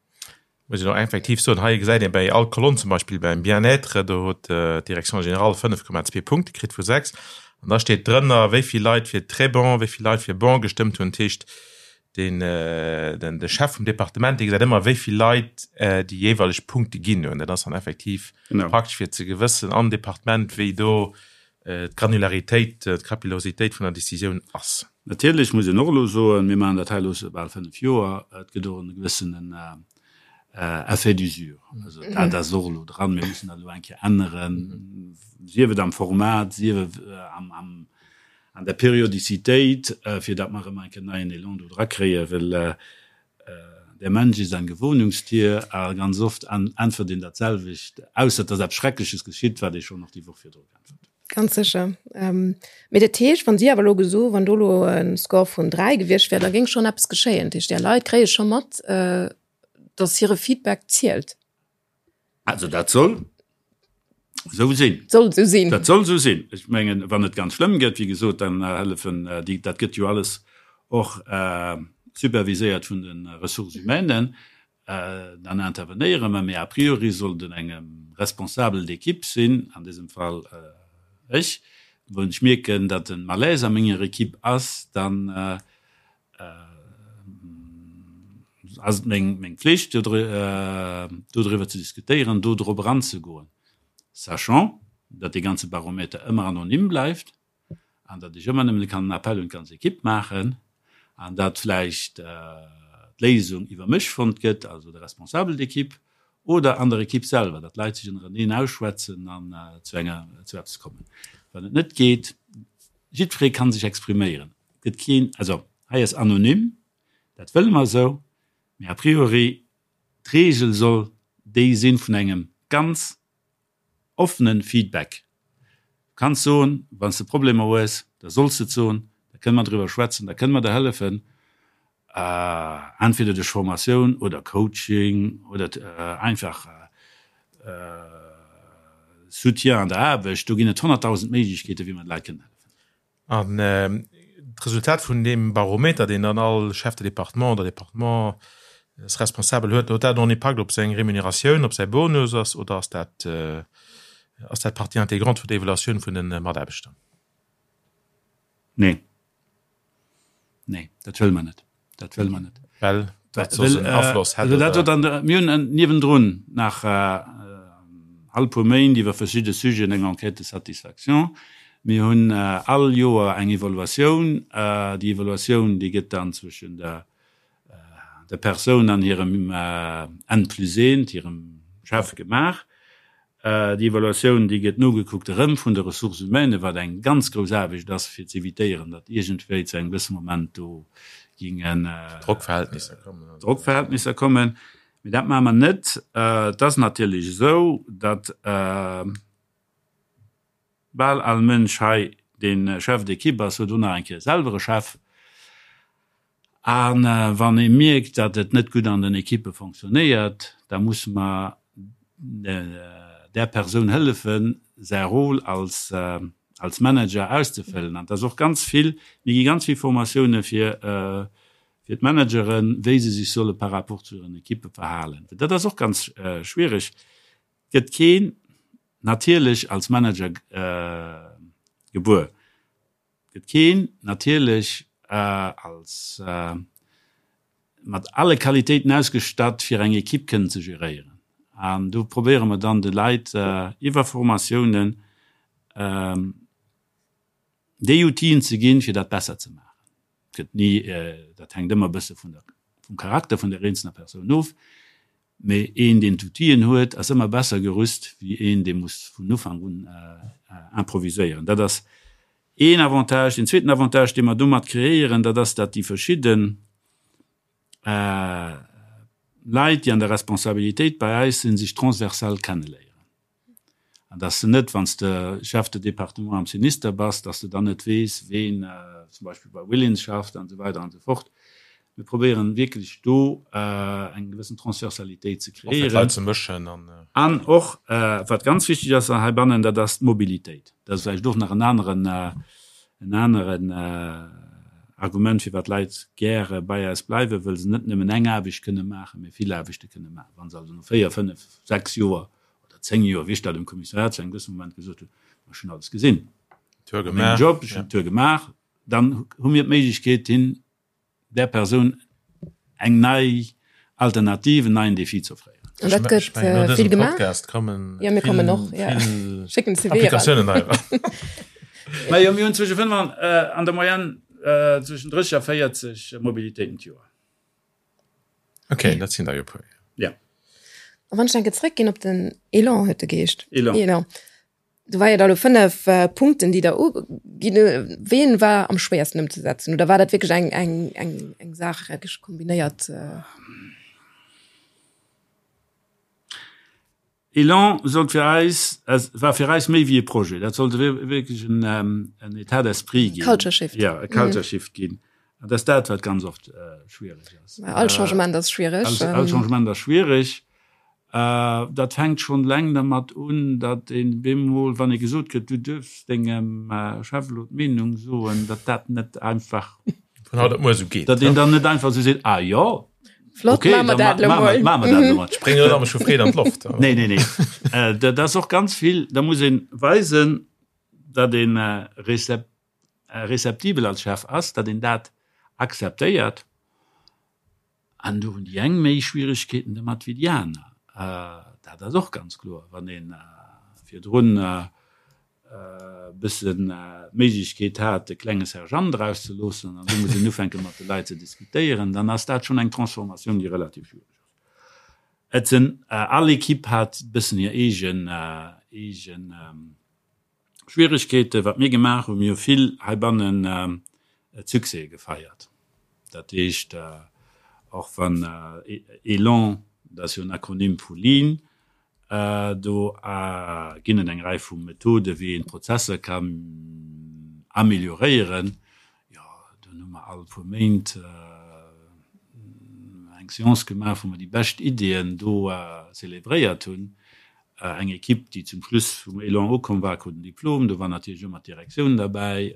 Muss een och effektiv soen, hei gesäit een bäi all Kolonn, zum Beispill beim Bien-être, do huet d'Direction générale 5,2 Punkte kritt vu 6. An da steet drënner, wéi vill Leit fir très bon, wéi vill Leit fir bon gestëmmt hunn. Dat heescht, den, den, de Chef vum Departement, dee gesäit ëmmer, wéi vill Leit déi jeeweileg Punkte ginn hunn. Dat ass dann effektiv praktesch fir ze gewëssen am Departement, wéi do d'Granularitéit, d'Capillositéit vun der Décisioun ass. Natierlech muss een och elo soen, mir maachen dat hei elo scho bal 5 Joer, et gëtt och e gewëssenen Effet d'usure. Also dat ass och elo dran. Mir mussen dat elo eng Kéier änneren, sief et am Format, sief et an der Periodicitéit, fir datt mer erëm eng Kéier neien Elan do drakréien, well Der Mensch ist ein Gewohnungstier a ganz oft äntwert een dat selwecht, ausser et ass eppes Schreckleches geschitt, wat ee schonn och déi Woch virdru geäntwert huet. Ganz sécher. Mee dat heescht, wann si awer elo geso, wann do elo e Score vun 3 gewiescht wär, da géing schonn eppes geschéien. Dat heescht, Är Leit kréie scho mat, datt hire Feedback zielt. Also dat soll esou sinn. Soll esou sinn. Dat soll esou sinn. Ech mengen, wann et ganz schlëmm gëtt, wéi gesot, dann hëllefen déi, dat gëtt jo alles och superviséiert vun de Ressources humaines, dann intervenéiere mer. Mee a priori sollt et engem Responsable d'équipe sinn, an dësem Fall ech, wann ech mierken, datt e Malaise a menger Equipe ass, dann ass et meng Pflicht, dodriwwer ze diskutéieren, do drop eranzegoen, sachant, datt dee ganze Barometer ëmmer anonym bleift an datt ech ëmmer nëmmen kann en Appel un d'ganz Equipe maachen an datt vläicht d'Léisung iwwer mech fonnt gëtt, also de Responsable d'équipe. Oder an der Ekipp selwer, datt d'Leit sech ënnereneen ausschwätzen an zu enger, zu eppes kommen. Wann et net geet, jiddweree ka sech expriméieren. Et gëtt keen, also hei ass anonym, dat wëlle mer esou, mee a priori d'Reegel soll déi sinn vun engem ganz offenen Feedback. Du kanns soen, wann s de Problemer hues, da solls de et soen, da kënne mer driwwer schwätzen, da kënne mer der hëllefen, entweder duerch Formatioun oder Coaching oder einfach Soutien an der Aarbecht. Do ginn et 100.000 Méiglechkeeten, wéi mer de Leit kënnen hëllefen. An d'Resultat vun deem Barometer, deen dann all Chef de département oder Départementsresponsabel huet, huet dat en Impakt op seng Remuneratioun, op säi Bonus ass oder ass dat, ass dat Partie intégrante vun der Evaluatioun vun de Mataarbechter? Nee. Nee, dat wëlle mer net. Dat wëlle mer net. Well dat soss en Afloss hätt, oder? Dat huet mir hunn niewendrun nach all puer Méint iwwer verschidde Sujeten eng Enquête de satisfaction. Mir hunn all Joer eng Evaluatioun. Déi Evaluatioun, déi gëtt dann zwëschen der der Persoun an hirem N plus eent, hirem Chef gemaach. Déi Evaluatioun, déi gëtt nogekuckt erëm vun de Ressources humaines, wat eng ganz grouss Aarbecht ass, fir ze evitéieren, datt iergendwéi zu engem gewësse Moment do gingen Drockverhältnisser kommen. Drockverhältnisser kommen. Mee dat maache mer net. Et ass natierlech esou, datt bal all Mënsch hei, dee Chef d'équipe ass, huet och nach eng Kéier selwer e Chef. A wann ee mierkt, datt et net gutt an den Ekippe fonctionnéiert, da musse mer där Persoun hëllefen, säi Rôle als als Manager auszefëllen. An et ass och ganz vill, mir gi ganz vill Formatioune fir fir d'Manageren, wéi se sech solle par rapport zu hiren Ekippe verhalen. Dat ass och ganz schwiereg. Et gëtt keen natierlech als Manager gebuer. Gëtt keen natierlech als mat alle Qualitéiten ausgestatt fir eng Equipe kënnen ze geréieren. An do probéiere mer dann de Leit iwwer Formatiounen déi Outile ze ginn, fir dat besser ze maachen. Gëtt ni, dat hänkt ëmmer e bësse vun der, vum Charakter vun der eenzelner Persoun of, mee een deen d'Outilen huet, ass ëmmer besser gerüst wéi een dee muss vun Ufank un improviséieren. Dat ass een Avantage. Deen zweeten Avantage dee mer domat kreéieren, dat ass, datt déi verschidde Leit, déi an der Responsabilitéit bei eis sinn, sech transversal kenneléieren. An dass de net, wann s de Chef de département am Sinister bass, dass de dann net weess, ween zum Beispill bei Willins schafft an esou weider an esou fort. Mir probéieren wierklech do eng gewëssen Transversalitéit ze Och fir kreéieren. d'Leit ze mëschen an. An och, wat ganz wichteg ass heibannen, dat ass d'Mobilitéit. Dat ass vläicht och nach en aneren, en aneren Argument, firwat d'Leit gäre bei eis bleiwen, wëll se net nëmmen eng Aarbecht kënne maachen, mee vill Aarbechte kënne maachen. Wa se also no véier, fënnef, sechs Joer oder 10 Joer, wéi ech dat um Kommissariat zu engem gewësse Moment gesot hunn, ma ech hunn alles gesinn, Tour mengem gemaach, Job, ech hunn d'Tour gemaach, dann hu mir d'Méiglechkeet, hin där Persoun eng nei Alternativ, en neien Défi ze offréieren. An dat Ech gëtt mengen, no vill dësem gemaach. Podcast kommen Ja, mir kommen och, vill, ja. vill Schécken CV eran. Applikatiounen hei eran. Majo, mir hunn zwësche 5 an, an der Moyenne zwëschen 30 a 40 Mobilitéiten d'Joer. Okay, dat sinn der jo puer. Ja. A wann ech enke zréckginn op den Elan, huet de geheescht. Elan. Elan. Do war jo da lo 5 äh, Punkten, déi der uginn. Ween war am schwéiersten ëmzesetzen? Oder war dat wierklech eng, eng, eng, eng Saach wierklech kombinéiert? Äh? Elan sollt fir eis, war fir eis méi wéi e Projet. Dat sollt wierklech en État d'esprit ginn. Culture Shift. Ja, e Culture Shift ginn. An dat ass dat, wat ganz oft schwiereg ass. All Changement ass schwiereg. All Changement ass schwiereg. Dat fänkt schonn eleng dermat un, datt een bemol, wann ee gesot kritt, du duerfs dengem Chef elo d'Meenung soen, datt dat net einfach, Vun haut op muer esou geet. datt een dann net einfach esou seet, ah jo, Flott, okay, maache mer dat elo mol. Maache mer dat elo mol. Spréng net ëmmer vu Freed an d'Loft. Nee, nee, nee. Dat ass och ganz vill, da muss ee weisen, datt ee receptibel als Chef ass, datt een dat akzeptéiert. An do hunn déi eng méi Schwieregkeeten domat wéi déi aner. Dat ass och ganz kloer. Wann ee virdrun e bëssen d'Méiglechkeet hat, e klenge Sergeant erauszeloossen an du muss een ufänke mat de Leit ze diskutéieren, dann ass dat schonn eng Transformatioun, déi relativ schwiereg ass. Et sinn, all Equipe hat e bëssen hir eegen, eegen Schwieregkeeten. Wat mir gemaach hunn, mir hu vill heibannen Succèse gefeiert. Dat heescht, och wann ELAN, dat ass jo en Akronym vu Lean, Do ginn et eng Rei vu Methoden, wéi een d'Prozesser kann amélioréieren. Jo, dunn hu mer all puer Méint eng Séance gemaach, wou mer déi bescht Ideeën do zelebréiert hunn. Eng Equipe, déi zum Schluss vum Elan ukomm war, krut en Diplom. Do war natierlech ëmmer d'Direktioun derbäi,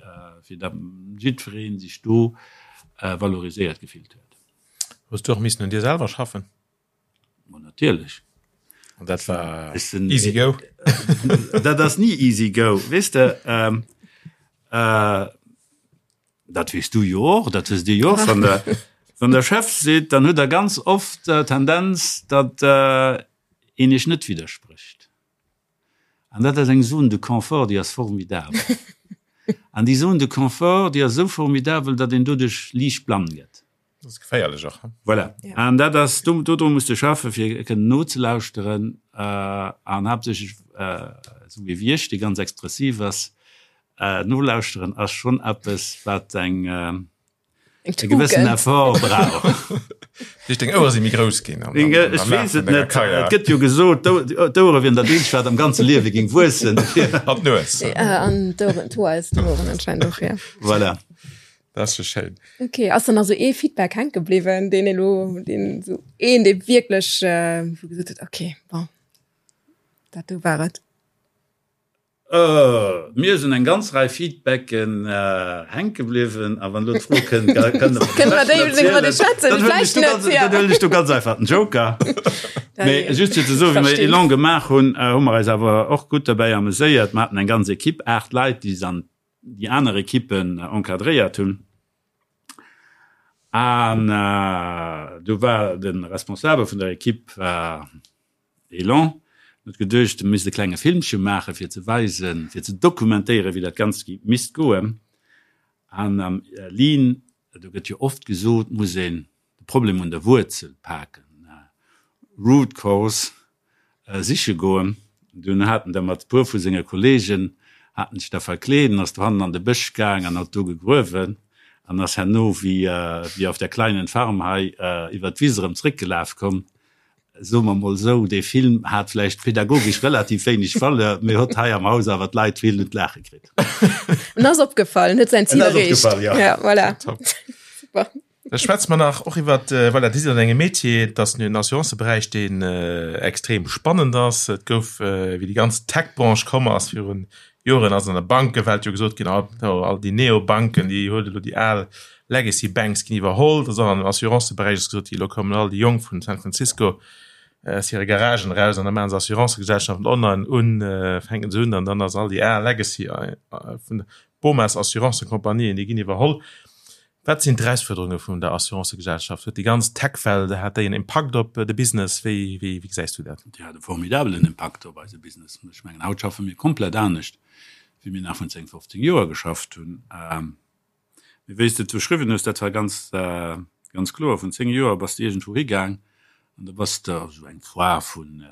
fir datt jiddweree sech do valoriséiert gefillt huet. Hues du och missen un dir selwer schaffen? Ma natierlech. An dat war easy go? Dat ass ni easy go, weess de. Ähm, äh, dat weess du jo och, dat wësst Dir jo och, wann der, wann der Chef seet, dann huet der ganz oft äh, Tendenz, datt äh, een Iech net widdersprécht. An dat ass eng Zone de confort, déi ass formidabel. An déi Zone de confort, déi ass esou formidabel, datt een doduerch liicht blann gëtt. Dat ass geféierlech och. Voilà. An dat ass, do, dodru muss de schaffen, fir kënnen nozelauschteren an haaptsächlech, esou wéi ech, dee ganz expressiv ass, nolauschteren ass schonn eppes, wat eng, e gewëssen Effort brauch. Duerch deng Ouere si méi grouss ginn. Ech weess et net. Et gëtt jo gesot, d'Ouere wieren dat eenzegt, wat am ganze Liewe géing wuessen. An d'Nues. An d'Oueren, d'Hoer aus den Oueren anscheinend och, ja. Voilà. Dat ass jo schéin. Ok, ass dann also ee Feedback hänke bliwwen, deen elo, deen esou een, dee wierklech, wou gesot huet, ok, bon, dat do war et? Mir sinn eng ganz Rei Feedbacken hänke bliwwen a wann elo d'Fro kënnt, kënne mer déi erzielen, dann huelen ech do ganz einfach den Joker. Mee just fir ze soen, wéi mer Elan gemaach hunn, hu mer eis awer och gutt derbäi ameséiert. Mer haten eng ganz Ekipp, 8 Leit, déi an déi aner Ekippen encadréiert hunn. An do war de Responsabel vun der Ekipp war Elan huet geduecht, e misst e klenge Filmche maachen, fir ze weisen, fir ze dokumentéieren, wéi dat Ganzt misst goen. An am Lean, do gëtt jo oft gesot, muss een de Problem un der Wuerzel paken, root cause siche goen. Dunn hat en da mat e puer vu senge Kollegen, hat en sech da verkleet an ass dohannen an de Bësch gaang an hat do gegruewen an ass herno wéi wéi auf der kleinen Farm hei iwwer d'Wiss erëm zréckgelaf komm. Soe mer mol esou, dee Film hat vläicht pedagogesch relativ wéineg Valeur, mee hott hei am Haus awer d'Leit vill un d'Laache kritt. En ass opgefall, en huet säin Zil En ass erreecht. opgefall, ja. Ja, voilà. Top. Super. Da schwätze mer nach och iwwer, voilà, Dir sidd an engem Metier, et ass den Assuranceberäich, deen extrem spannend ass. Et gouf, wéi déi ganz Tech-Branche komm ass virun Joren, ass an der Bankewelt jo gesot ginn, all déi Neobanken, déi huet elo déi al Legacy Banks ginn iwwerholl. Dat ass och an dem Assuranceberäich ass gesot ginn, elo kommen all déi Jonk vun San Francisco aus hire Garagen eraus an da maache se Assurancegesellschaften online un, fänken se un an dann ass all déi al Legacy vun Bomas Assurancecompagnieën, déi ginn iwwerholl. Wat sinn d'Erausfuerderunge vun der Assurancegesellschaft? Huet déi ganz Tech-Welt, hat déi en Impakt op de Business? Wéi gesäis du dat? Déi hat e formidabelen Impakt op eise Business. Ech mengen, haut schaffe mir komplett anescht, wéi mir nach vrun 10, 15 Joer geschafft hunn. Mee wéi s de et beschriwwen hues, dat war ganz, ganz kloer. Vrun 10 Joer bass de iergendwou higaang an da bass de op esou eng Foire vun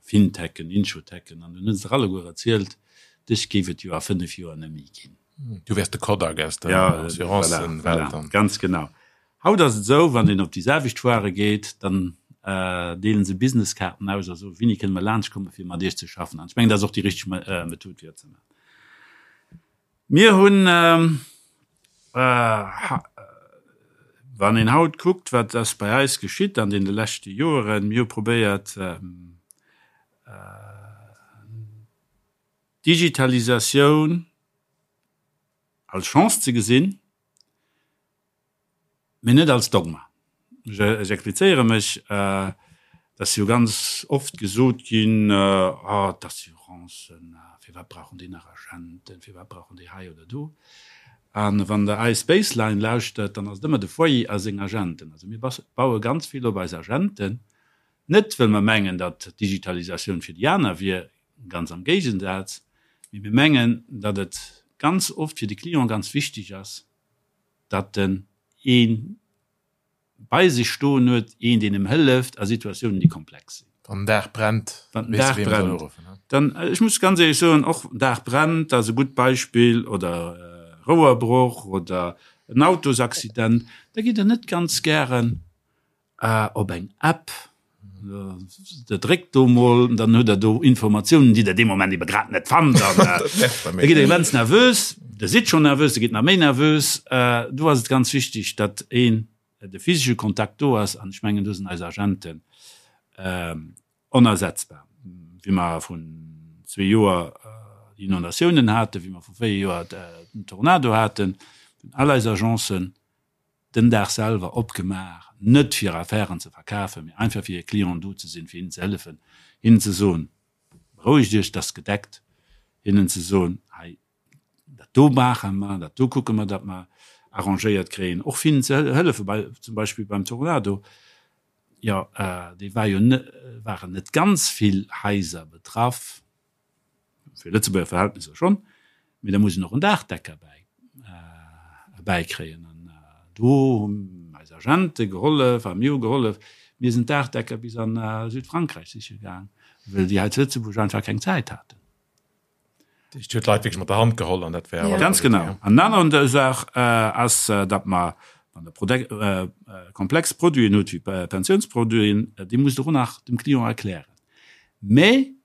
Fintechen, Insurtechen an dunn hunn se der alleguer erzielt, dech géif et jo a 5 Joer net méi ginn. Du wärs de Kodak aus der Assurancewelt dann. Voilà, ganz genau. Haut ass et esou, wann een op déi selwecht Foire geet, dann deelen se Businesskaarten aus a soen, Wéini kënne mer laanschtkommen, fir mat Iech ze schaffen? An ech mengen, dat ass och déi richteg Method, fir dat ze maachen. Mir hunn, wann een haut kuckt, wat ass bei eis geschitt an deene leschte Joeren, mir hu probéiert, d'Digitalisatioun als Chance ze gesinn, mee net als Dogma. Ech explizéiere mech, Et ass jo ganz oft gesot ginn, Ah, d'Assurancen, firwat brauchen déi nach Agenten, firwat brauchen déi hei oder do? A wann Der eis Baseline lauschtert, dann ass et ëmmer de Foyer a seng Agenten. Also mir baue ganz vill op eis Agenten, net wëll mer mengen, datt d'Digitalisatioun fir déi aner wier, Ganz am Géigensaz, mee mir mengen, datt et ganz oft fir de Client ganz wichteg ass, datt en ee bei sech stoen huet, een deen em hëlleft a Situatiounen déi komplex sinn. Wann den Daach brennt, Wann den Daach brennt, dann, ech muss ganz éierlech soen, och Daach brennt ass e gutt Beispill, oder Rouerbroch oder en Autosaccident, da gitt Der net ganz gären op eng App, Der dréckt do mol, dann hutt Der do Informatiounen, déi Der dee Moment ebe grad net fannt an da gitt Der immens nervös. Der sidd schonn nervös, Der gitt nach méi nervös. Do ass et ganz wichteg, datt een de physesche Kontakt do ass an ech mengen, do sinn eis Agenten onersetzbar. Wéi mer vrun zwee Joer déi Inondatiounen haten, wéi mer vru véier Joer den Tornado haten, hunn all eis Agencen den Dag selwer opgemaach, net fir Affären ze verkafen, mee einfach fir hir Clienten do ze sinn, fir hinnen ze hëllefen, hinnen ze soen, Berouegt Iech, et ass gedeckt, hinnen ze soen, hei, dat do maache mer, dat do kucke mer, datt mer arrangéiert kréien, och fir hinnen ze hëllefen, bei, zum Beispill beim Tornado, jo, dee war jo net, waren net ganz vill Haiser betraff, fir Lëtzebuerger Verhältnisser schonn, mee da muss een och en Daachdecker bäi bäikréien. An do hunn eis Agente gehollef a mir hu gehollef. Mir sinn d'Daachdecker bis a Südfrankräich siche gaang, well déi hei zu Lëtzebuerg einfach keng Zäit haten. Dat heescht, Dir hutt d'Leit wierklech mat der Hand geholl an dat war. Ganz genau. An en aner Saach ass, datt mer, wann Der komplex Produiten hutt, wéi Pensiounsproduiten, déi musst Der och nach dem Client erklären. Mä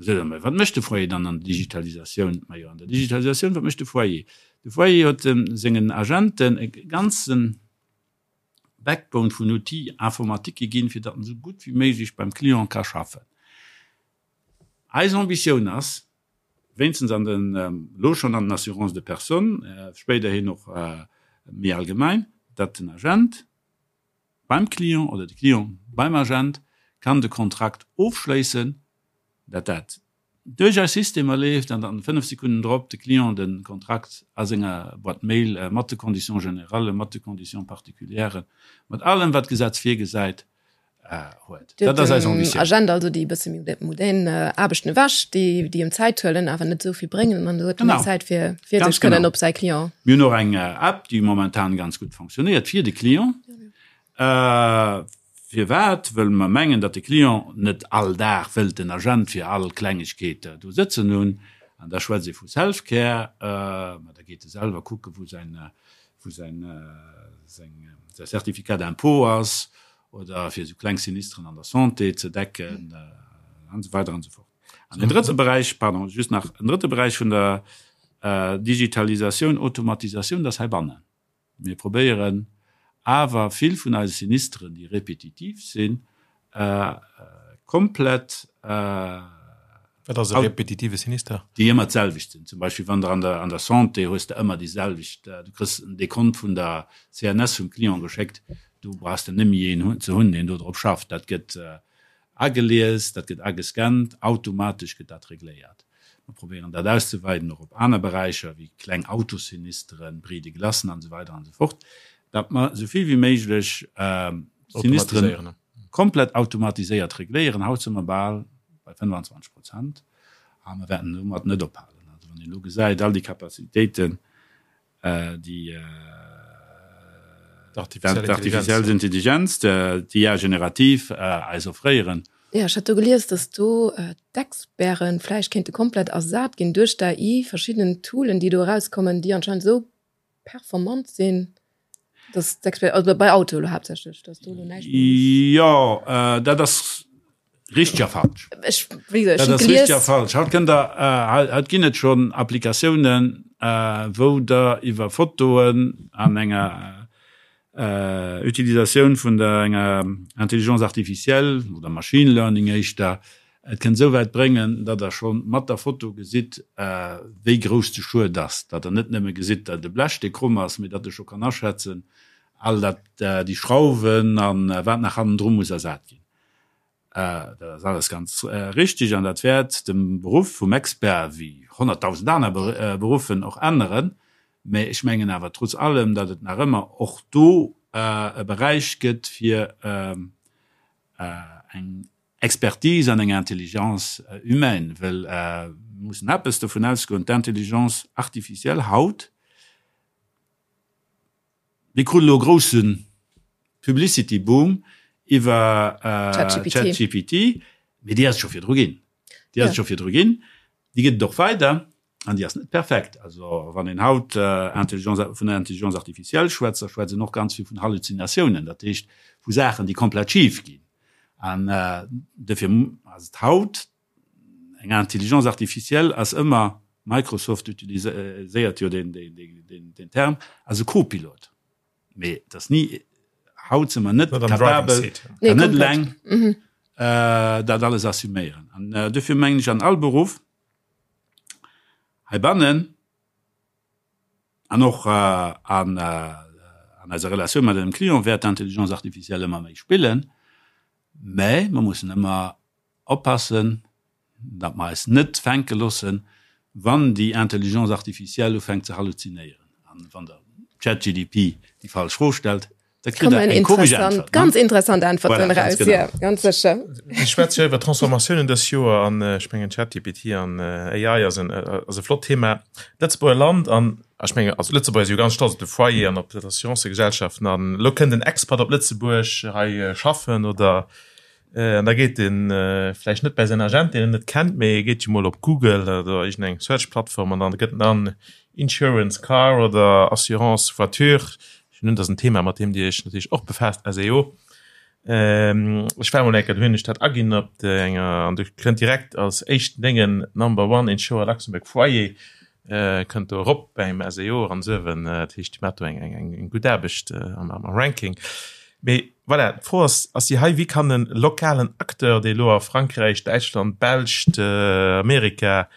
Sot emol, wat mécht de Foyer dann an der Digitalisatioun? Majo, an der Digitalisatioun, wat mécht de Foyer? De Foyer huet sengen Agenten e ganze Backbone vun Outils informatiques ginn, fir datt en esou gutt wéi méiglech beim Client ka schaffen. Eis Ambitioun ass, wéinstens an den, elo schonn an den Assurances de personnes, spéiderhin och méi allgemein, datt den Agent beim Client oder de Client beim Agent kann de Kontrakt ofschléissen, datt dat duerch eis Systemer leeft an datt 5 Sekunden drop de Client de Kontrakt a senger Boîte mail mat de Conditions générales, mat de Conditions particulières, mat allem wat d'Gesetz virgesäit, huet. Dat ass eis Ambitioun. Agent also déi e bësse méi modern Aarbechten ewech, déi déi em Zäit huelen, awer net esou vill bréngen an huet méi Zäit fir fir sech kënnen op säi Client. Mir hunn och eng App, déi momentan ganz gutt fonctionnéiert fir de Client. Firwat? Wëll mer mengen, datt de Client net all Dag wëllt den Agent fir all Klengegkeet do sëtzen hunn. An da schwätzt ee vu Self-Care, ma da geet e selwer kucke wou säin wou säin seng säi Certificat d'impôt ass oder fir esou kleng Sinistren an der Santé ze decken an esou weider an esou fort. An en drëtte Beräich, pardon, just nach en drëtte Beräich vun der Digitalisatioun, Automatisatioun, dat ass heibannen. Mir probéieren awer vill vun eise Sinistren, déi repetitiv sinn, komplett. Wat ass e repetitive Sinister? Déi ëmmer d'selwecht sinn. Zum Beispill wann der an der an der Santé hues de ëmmer déi selwecht, du kriss en Dekont vun der CNS vum Client geschéckt, do brauchs de nëmme een ze hunn, deen do drop schafft. Dat gëtt agelies, dat gëtt agescannt, automatesch gëtt dat regléiert. Mer probéieren dat auszeweiden och op aner Beräicher wéi kleng Autosinisteren, Bris de glacen an esou weider an esou fort, datt mer esou vill wéi méiglech Sinisteren komplett automatiséiert regléieren. Haut si mer bal bei 25 Prozent a mer wäerten domat net ophalen. Also wann een elo gesäit, all déi Capacitéiten, déi d'artificiell Intelligenz, d'IA générative eis offréieren. Jo, ech hat do gelies, datt do d'Experten vläicht kéinte komplett ersat ginn duerch d'AI, verschidden Toolen, déi do erauskommen, déi anscheinend esou performant sinn, dass d'Expert, also bei Auto elo haaptsächlech, dass do elo näischt méi muss. Jo, dat ass richteg a falsch. Ech, wéi gesot, ech Dat hunn ass richteg gelies. a falsch. Haut kënnt Der, haut ginn et schonn Applikatiounen, wou Der iwwer Fotoen an enger Utilisatioun vun der enger Intelligence artificielle oder Machine Learning éischter, et kënnt esou wäit bréngen, datt Der scho mat der Foto gesitt, wéi grouss de Schued ass, datt Der net nëmme gesitt, datt e Blech, dee kromm ass, mee datt Der scho kann aschätzen, all dat, déi Schrauwen a wat nach hannendru muss ersat ginn. Dat ass alles ganz richtig an dat wäert de Beruff vum Expert, wéi 100.000 aner Beruffen, och änneren. Mä ech mengen awer trotz allem, datt et nach ëmmer och do e Beräich gëtt fir eng Expertise an eng Intelligence humaine, well mir mussen eppes dovun ausgoen, d'Intelligence artificielle haut, Mir kruten elo e groussen. Publicity Boom iwwer ChatGPT, mee déi ass et scho virdru ginn. Déi ass et scho virdru ginn, déi gëtt et och weider an déi ass net perfekt. Also wann een haut Intelligence, vun der Intelligence artificielle schwätzt, da schwätzt een och ganz vill vun Halluzinatiounen, dat heescht vu Saachen, déi komplett schif ginn. An dofir ass et haut eng Intelligence artificielle ass ëmmer, Microsoft utiliséiert jo deen Term, ass e Copilot. Mee et ass ni, haut si mer net capabel, kann net eleng dat alles assuméieren. An dofir mengen ech, an all Beruff heibannen an och an eiser Relatioun mat engem Client wäert d'Intelligence artificielle ëmmer méi spillen, mä mer mussen ëmmer oppassen, datt mer eis net fänke loossen, wann déi Intelligence artificielle ufänkt ze halluzinéieren. An wann Der ChatGDP déi falsch Fro stellt, da kritt Der eng komesch Äntwert. Ganz interessant Äntwerten eraus, jo, ganz sécher. Mir schwätze jo iwwer Transformatiounen dës Joer an ech mengen ChatGPT an AI ass en ass e flott Thema. D'Lëtzebuerger Land an ech mengen, also Lëtzebuerger si jo ganz stolz op de Foyer an op d'Assurancëgesellschaften an elo kënnt en Expat op Lëtzebuerg hei schaffen oder An da geet en vläicht net bäi säin Agent, deen en net kennt, mee e geet jo mol op Google oder iergendeng Search-Plattform an dann gëtt en an Insurance Car oder Assurance Voiture. Ech hunn un, dat ass en Thema, mat deem Dir Iech natierlech och befaasst, SEO. Ech war mol eng Kéier, do hunn ech dat aginn op enger, an do kënnt direkt als éischten Déngen Number One Insurer Luxembourg Foyer kënnt do erop beim SEO eran suewen. Dat heescht, déi maacht do eng, eng, eng gutt Aarbecht am, am Ranking. Mee voilà, d'Fro ass, ass déi hei, Wéi kann e lokalen Acteur, dee elo a Frankräich, Däitschland, Belscht, Amerika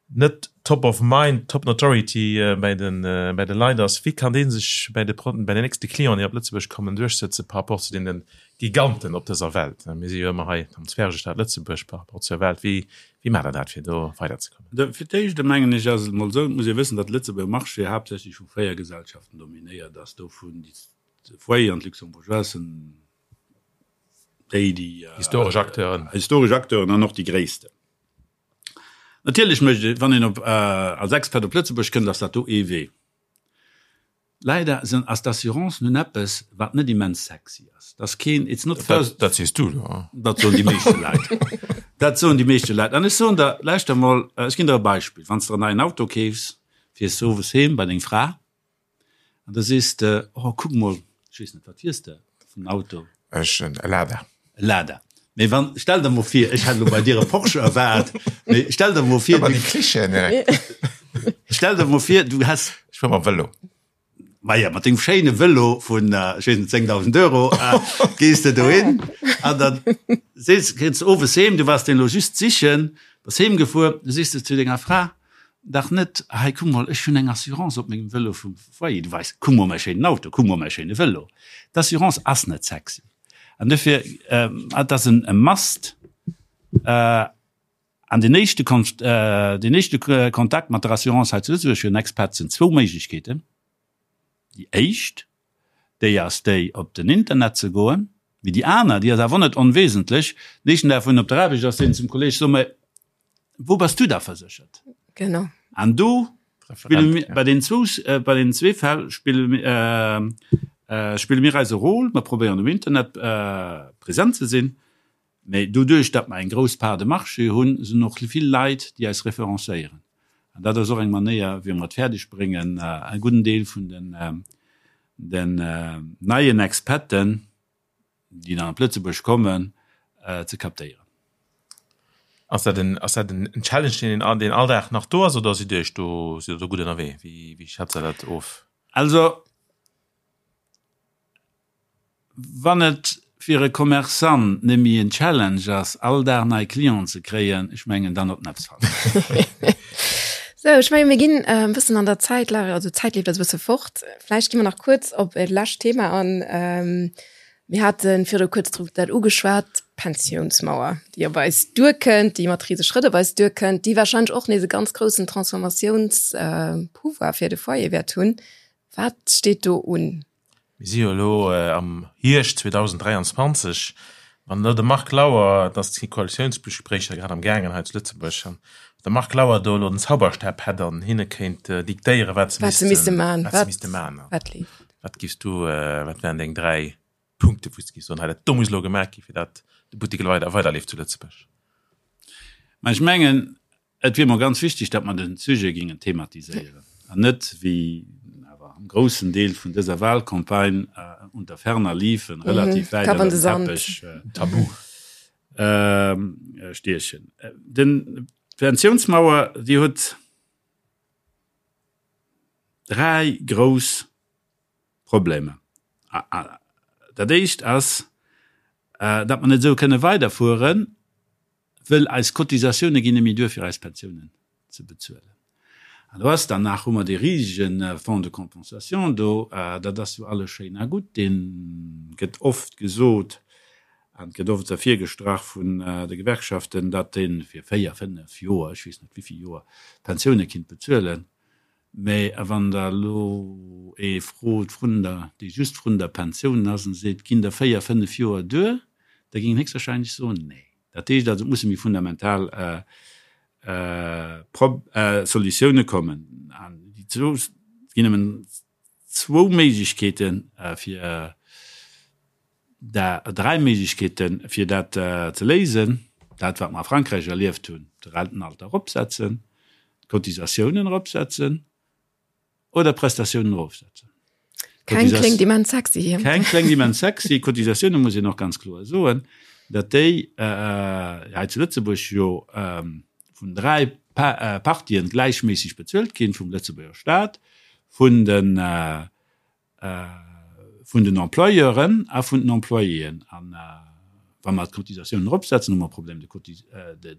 net top of mind, top notoriety bäi de, bäi de Leit ass, wéi kann dee sech bäi de, bäi den nächste Clienten, déi op Lëtzebuerg kommen, duerchsëtze par rapport zu deene Giganten op dëser Welt? Mir si jo ëmmer hei am Zwergestaat Lëtzebuerg par rapport zur Welt. Wéi, wéi maacht Der dat, fir do weiderzekommen? Fir d'éischt mengen ech, ass et emol esou, et muss ee wëssen, datt de Lëtzebuerger Marché haaptsächlech vu 4 Gesellschaften dominéiert ass, dovun déi De Foyer an d'Luxembourgeoise sinn déi, déi. Historesch Acteuren. Historesch Acteuren an och déi gréissten. Natierlech mécht ee, wann een op, als Expert op Lëtzebuerg kënnt, ass dat do ee Wee. Leider sinn, ass d'Assurance nun eppes, wat net immens sexy ass. Dat ass keen, it's not first. Dat sees du elo. Dat soen déi meeschte Leit. Dat soen déi meeschte Leit. An ech soen der, lauschter emol, ech ginn der e Beispill, Wann s de der en neien Auto keefs, fiers de owes heem bei deng Fra, An da sees de, oh kuck mol, ech weess net, wat fiers de vun Auto? Ech en Lada. E Lada. Mee wann, stell der mol vir, ech hätt elo bei dir e Porsche erwaart, mee stell der mol vir, Ëmmer déi Klischeeën direkt. Stell der mol vir, du häss. Ech fuer mam Vëlo. Maja, mat dengem schéine Vëlo vun, ech weess net, 10.000 Euro, gees de dohin an dann sees, kënns de owes heem, du waars deen elo just sichen, bass heemgefuer, du sees de zu denger Fra, Dach net, hei kuck mol, ech hunn eng Assurance op mengem Vëlo vum Foyer, du weis, kuck mol mäi schéinen Auto, kuck mol mäi schéine Vëlo. D'Assurance ass net sexy an dofir, et ass en must an den éischte den éischte Kontakt mat der Assurance hei zu Lëtzebuerg fir en Expat sinn zwou Méiglechkeeten. Déi éischt, déi ass déi op den Internet ze goen, mee déi aner, déi ass awer och net onwesentlech, den éischten Dag wou en op der Aarbecht ass, seet en zum Kolleeg, so mol, Wou bass du da verséchert? Genau. An do spille mir, bei den zwou, bei den zwee Fäll spille mir, spille mir eise Rôle. Mer probéieren um Internet present ze sinn, mä doduerch, datt mer eng grouss Part de marché hunn, sinn och vill Leit, déi eis referencéieren. An dat ass och eng Manéier, wéi mer et fäerdeg bréngen, e gudden Deel vun den, den neien Expaten, déi dann op Lëtzebuerg kommen, ze captéieren. Ass dat en, ass dat en Challenge, deen een, deen all Dag nach do ass, oder sidd Dir Iech do, sidd Der do gutt ënnerwee? Wéi, wéi schätzt Der dat of? Also, wann et fir e Commerçant net méi en Challenge ass, all Dag nei Clienten ze kréien, ech mengen, dann huet en eppes falsch gemaach. Sou, ech mengen, mir ginn e bëssen an der Zäit, also d'Zäit leeft eis e bësse fort. Vläicht gi mer nach kuerz op e lescht Thema an. Mir hate viru kuerz drop dat ugeschwat, d'Pensiounsmauer, déi op eis duerkënnt, déi mat rise Schrëtt op eis duerkënnt, déi warscheinlech och nees e ganz groussen Transformatiounspouvoir fir de Foyer wäert hunn. Wat steet do un? Mir si jo elo am Hierscht 2023. Wann elo de Marc Lauer, et ass d'si Koalitiounsgespréicher grad am gaangen hei zu Lëtzebuerg, an de Marc Lauer do elo den Zauberstab hätt an hinne kéint diktéieren, wat se misste maachen, wat giffs du, wat wären deng 3? Punkte wou s de géifs soen, hei dat do muss elo gemaach gi fir dat de Buttek elo weider weiderleeft zu Lëtzebuerg? Mä ech mengen, et wier mer ganz wichteg, datt mer de Sujet géingen thematiséieren an net, wéi awer am groussen Deel vun dëser Wahlcampagne, unter ferner liefen, relativ wäit ënner den Teppech Tabu stiechen. Den d'Pensiounsmauer, déi huet dräi grouss Problemer. Dat éischt ass, datt mer net esou kënne weiderfueren, wëll eis Cotisatioune ginn net méi duer fir eis Pensiounen ze bezuelen. An do ass dann nach, hu mer dee risege Fonds de compensation do, dat ass jo alles schéin a gutt, dee gëtt oft gesot an gëtt oft ervirgestrach vun de Gewerkschaften, datt dee fir 4, 5 Joer, ech weess net wéivill Joer, d'Pensioune kinnt bezuelen. Mä wann Der elo ee frot vrun der, dee just vrun der Pensioun ass an seet, Ginn der 4, 5 Joer duer? da géing en héchstwahrscheinlech soen, Nee. Dat heescht also, et musse méi fundamental Solutioune kommen. An déi zwou, et ginn nëmmen zwou Méiglechkeeten, fir dräi Méiglechkeeten, fir dat ze léisen, Dat, wat mer a Frankräich erlieft hunn, de Rentenalter eropsetzen, d'Cotisatiounen eropsetzen oder d'Prestatiounen erofsetzen. Keng kléngt immens sexy. Keng kléngt immens sexy. Cotisatioune muss een och ganz kloer soen, datt déi hei zu Lëtzebuerg jo vun dräi Partien gläichméisseg bezuelt ginn, vum Lëtzebuerger Staat, vun de vun den Employeuren a vun den Employéen. An wa mer d'Cotisatiounen eropsetzen, hu mer e Problème de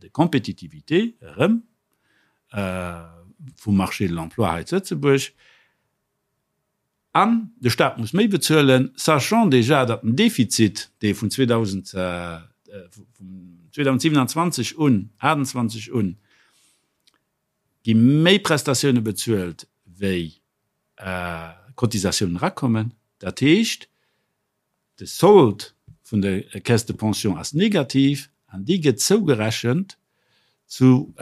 compétitivité erëm vum Marché de l'emploi hei zu Lëtzebuerg. An de Staat muss méi bezuelen, sachant déjà, datt den Defizit, dee vun 2027 un, 2028 un, gi méi Prestatioune bezuelt wéi Cotisatiounen erakommen. Dat heescht, de Sold vun der Caisse de pension ass negativ an déi gëtt zougerechent zu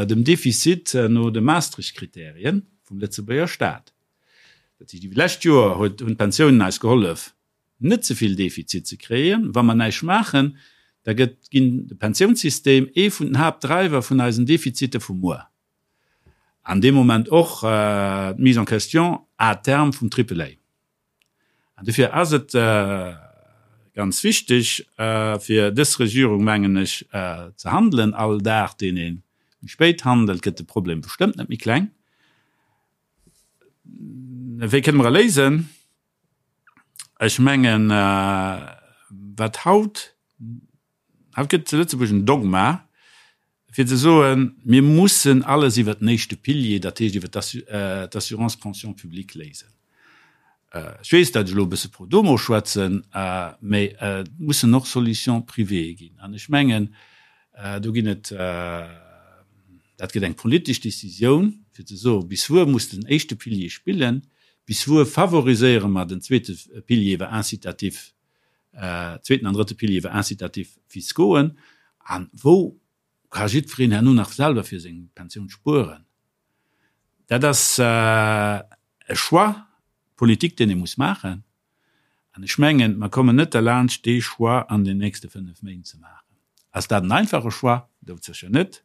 dem Defizit no de Maastricht-Kriterien vum Lëtzebuerger Staat. Dat heescht, iwwer d'lescht Joer huet hunn d'Pensiounen eis gehollef, net ze vill Defizit ze kréien. Wa mer näischt maachen, da gëtt ginn de Pensiounssystem ee vun den Haaptdriver vun eisen Defizite vu muer. An dee Moment och d'Mise en question à terme vum Triple A. An dofir ass et ganz wichteg fir dës Regierung, mengen ech, ze handelen. All Dag, deen ee méi spéit handelt, gëtt de Problem bestëmmt net méi kleng. Wéi kënne mer e léisen? Ech mengen, wat haut Haut gëtt zu Lëtzebuerg en Dogma, fir ze soen, mir mussen alles iwwert den éischte Pilier, dat heescht iwwert d'Assurance pension publique léisen. Ech weess, datt ech elo e bësse pro domo schwätzen, mä et mussen och Solutions privées ginn. An ech mengen, do ginn et, dat gëtt eng politesch Décisioun, fir ze soen, bis wuer muss den éischte Pilier spillen, bis wuer favoriséiere mer den zweete Pilier iwwer Incitatif zweeten an drëtte Pilier iwwer Incitatifs fiscauxen, a wou ka jiddwereen herno nach selwer fir seng Pensioun spueren. Dat ass e Choix politique, deen ee muss maachen. An ech mengen, mer kommen net derlaanscht, dee Choix an den nächste fënnef Méint ze maachen. Ass dat en einfache Choix? Doudsécher net.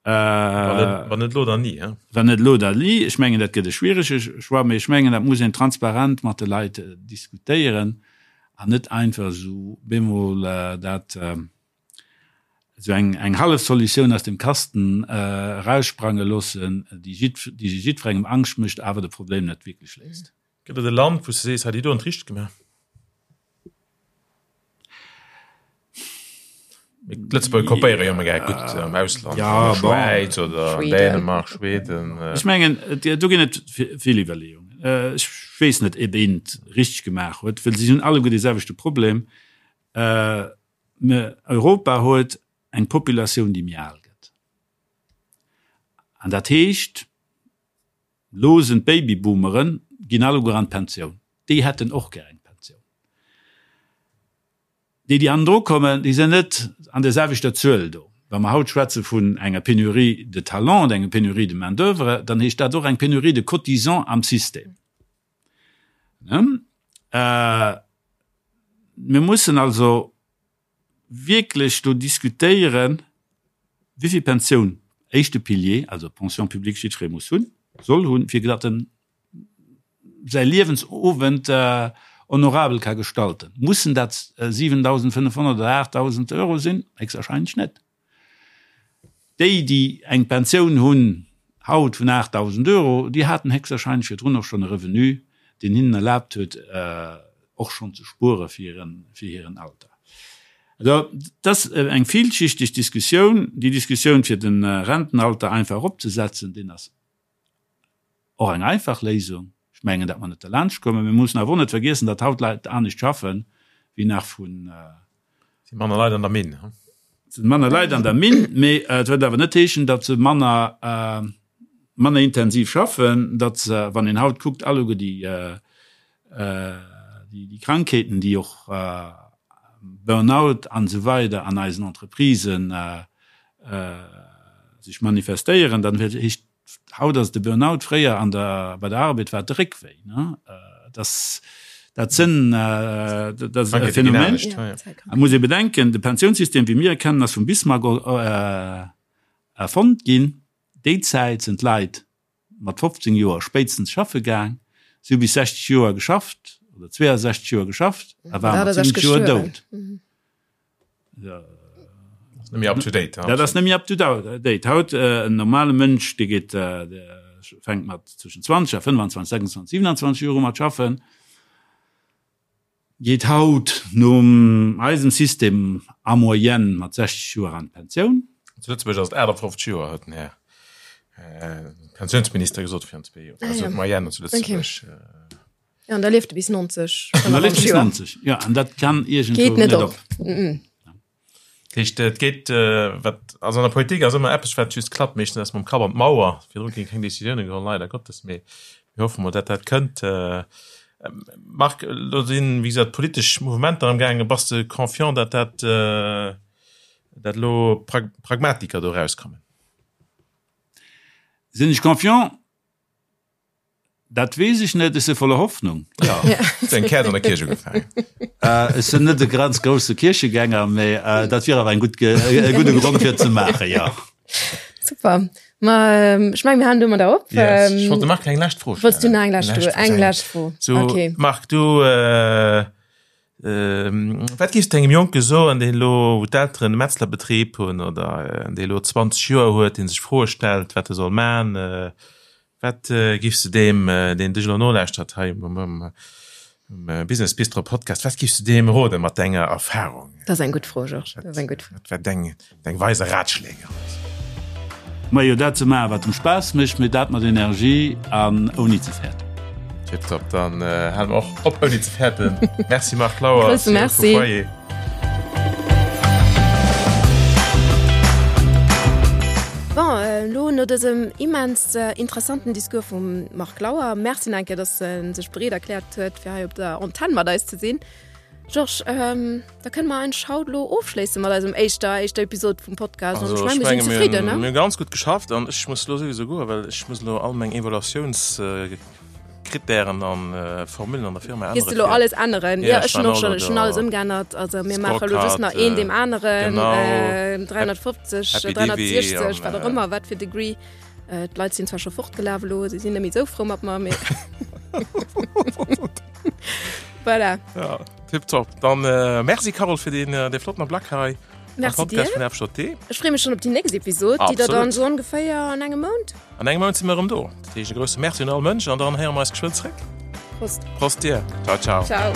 Wann net elo, dann ni. Wann net elo, dann ni. Ech mengen, dat gëtt e schwierege Choix, mee ech mengen, dat muss een transparent mat de Leit diskutéieren an net einfach esou bemol dat esou eng eng hallef Solutioun aus dem Kasten eraussprange loossen, déi jiddwerengem Angscht mécht, awer de Problem net wierklech léist. Gëtt et e Land, wou s de sees, hei, déi do hunn et richteg gemaach? D'Lëtzebuerger kopéiere jo ëmmer gär gutt am Ausland, ja, an der Schwäiz oder an Dänemark, Schweden. Ech mengen, do ginn et vill Iwwerleeungen. Ech weess net, ob een et richteg gemaach huet, well si hunn alleguer dee selwechte Problem. Europa huet eng Populatioun, déi méi al gëtt. An dat heescht, Lo sinn d'Babyboomeren, ginn alleguer an d'Pensioun. Déi hätten och gär eng Pensioun. Déi, déi hannendru kommen, déi sinn net an där selwechter Zuel do. Wa mer haut schwätze vun enger Pénurie de talents, enger Pénurie de main d'oeuvre, dann heescht dat och eng Pénurie de cotisants am System. Mir mussen also wierklech do diskutéieren, wéivill Pensioun éischte Pilier, also Pension publique, jiddweree muss hunn, soll hunn, fir datt en säi Liewensowend honorabel ka gestalten. Mussen dat 7.500 oder 8.000 Euro sinn? Héchstwahrscheinlech net. Déi, déi eng Pensioun hunn haut vun 8.000 Euro, déi haten héchstwahrscheinlech virdrun och schonn e Revenu, deen hinnen erlaabt huet, och schonn ze spuere fir hiren Alter. Also, et ass eng villschichteg Diskussioun. Déi Diskussioun, fir de Rentenalter einfach eropzesetzen, deen ass Och eng einfach Léisung. Ech mengen, datt mer net derlaanscht kommen. Mir mussen awer och net vergiessen, datt haut Leit anescht schaffen, wéi nach vrun. Et si manner Leit an der Minn. Et si manner Leit an der Minn, mee et wëllt awer net heeschen, datt se manner, manner intensiv schaffen, datt se, wann een haut kuckt, alleguer déi, déi Krankheeten, déi och Burnout an esou weider an eisen Entreprisen sech manifestéieren, dann heescht haut ass et de Burnout, fréier an der bei der Arbed war et de Réckwéi. Das dat sënn dat ass e Phänomen. Et muss ee bedenken, de Pensiounssystem wéi mir e kennen ass vum Bismarck erfonnt ginn. Déi Zäit sinn d'Leit mat 15 Joer spéitstens schaffe gaang, si hu bis 60 Joer geschafft oder 62 Joer geschafft a ware mat 70 Joer dout. Dat ass net méi up to date. Haut en normale Mënsch, dee geet, dee fänkt mat zwëschen 20 a 25, 26, 27 Joer u mat schaffen. Geet haut nom eisem System en moyenne mat 60 Joer an d'Pensioun. Zu Lëtzebuerg ass et 58 Joer, huet den Här Pensiounsminister gesot virun zwee Joer. Also d'Moyenne zu Lëtzebuerg. Jo, an da lieft e bis 90. An da lieft e bis 90, jo. An dat kann iergendwou net op. Dat heescht, et geet, wat, also an der Politik ass ëmmer eppes, wat just klappt, meeschtens ass mam Kapp an d'Mauer. Virdru gi keng Décisioune geholl, leider Gottes, mee mir hoffe mol, datt dat kënnt. Marc, elo sinn, wéi gesot, politesch Mouvementer amgaangen. Bass de confiant, datt dat, datt elo Pragmatiker do erauskommen? Sinn ech confiant? Dat weess ech net, ech si voller Hoffnung. Ja. Hues eng Käerz an der Kierch ugefaangen? Ech sinn net e ganz grousse Kierchegänger, mee dat wier awer eng gutt, e gudde Grond fir et ze maachen, jo. Super. Ma ech mengen, mir halen domadder op. Yes. Ech wollt dem Marc eng lescht Fro stellen. Wollts du nach eng lescht Fro? Eng lescht Fro. So, okay. Marc, du, wat géifs du engem Jonke soen, deen elo, wou d'Elteren e Metzlerbetrib hunn oder dee elo 20 Joer huet, dee sech Froe stellt, wat e soll man? Wat giffs de deem, deen dech elo nolauschtert hei um Business Bistro Podcast, wat giffs de deem roden mat denger Erfahrung? Dat ass eng gutt Fro, Georges. Dat ass eng gutt Fro. Wat wär deng, deng weise Ratschläge? Majo, dat ze maachen, wat em Spaass mécht, mee dat mat Energie an ouni ze fäerten. Tiptop, dann hale mer och op ouni ze fäerten. Merci Marc Lauer, Grousse Merci. Foyer. Bon, elo no dësem immens interessanten Discours vum Marc Lauer, Merci nach eng Kéier, dass en sech bereet erkläert huet, fir hei op der Antenn mat eis ze sinn. Georges, da kënne mer eigentlech haut elo ofschléisse mat eisem éischter, éischter Episod vum Podcast. Also, ech menge mir sinn zefridden, ne? Mir hu ganz gutt geschafft an ech muss elo souwisou goen, well ech muss elo all meng Evaluatiouns. Krittären an Formullen an der Firma änneren. Gees de lo alles änneren? Ja, ech hunn och schon, ech hunn alles ëmgeännert. Also mir maache lo just nach een deem aneren, 350, 360, wat och ëmmer, wat fir Degree. D'Leit sinn zwar scho fortgelaf elo, se sinn net méi esou frou mat mer, mee voilà. Ja, tipptopp. Dann merci Carole fir deen, dee flotten Ablack hei. Merci dir. Podcast vun FJT. Ech freeë mech schon op déi nächst Episod, déi der dann esou ongeféier an engem Mount. An engem Mount si mir erëm do. Dat heescht e grousse Merci un all Mënsch an dann héiere mer eis geschwënn zréck. Prost. Prost dir. Ciao, ciao. Ciao.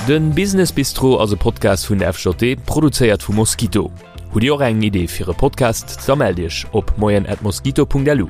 Den Business Bistro ass e Podcast vun der FJT, produzéiert vu Mosquito. Hutt Dir och eng Idee fir e Podcast? Da mellt Iech op moien@mosquito.lu.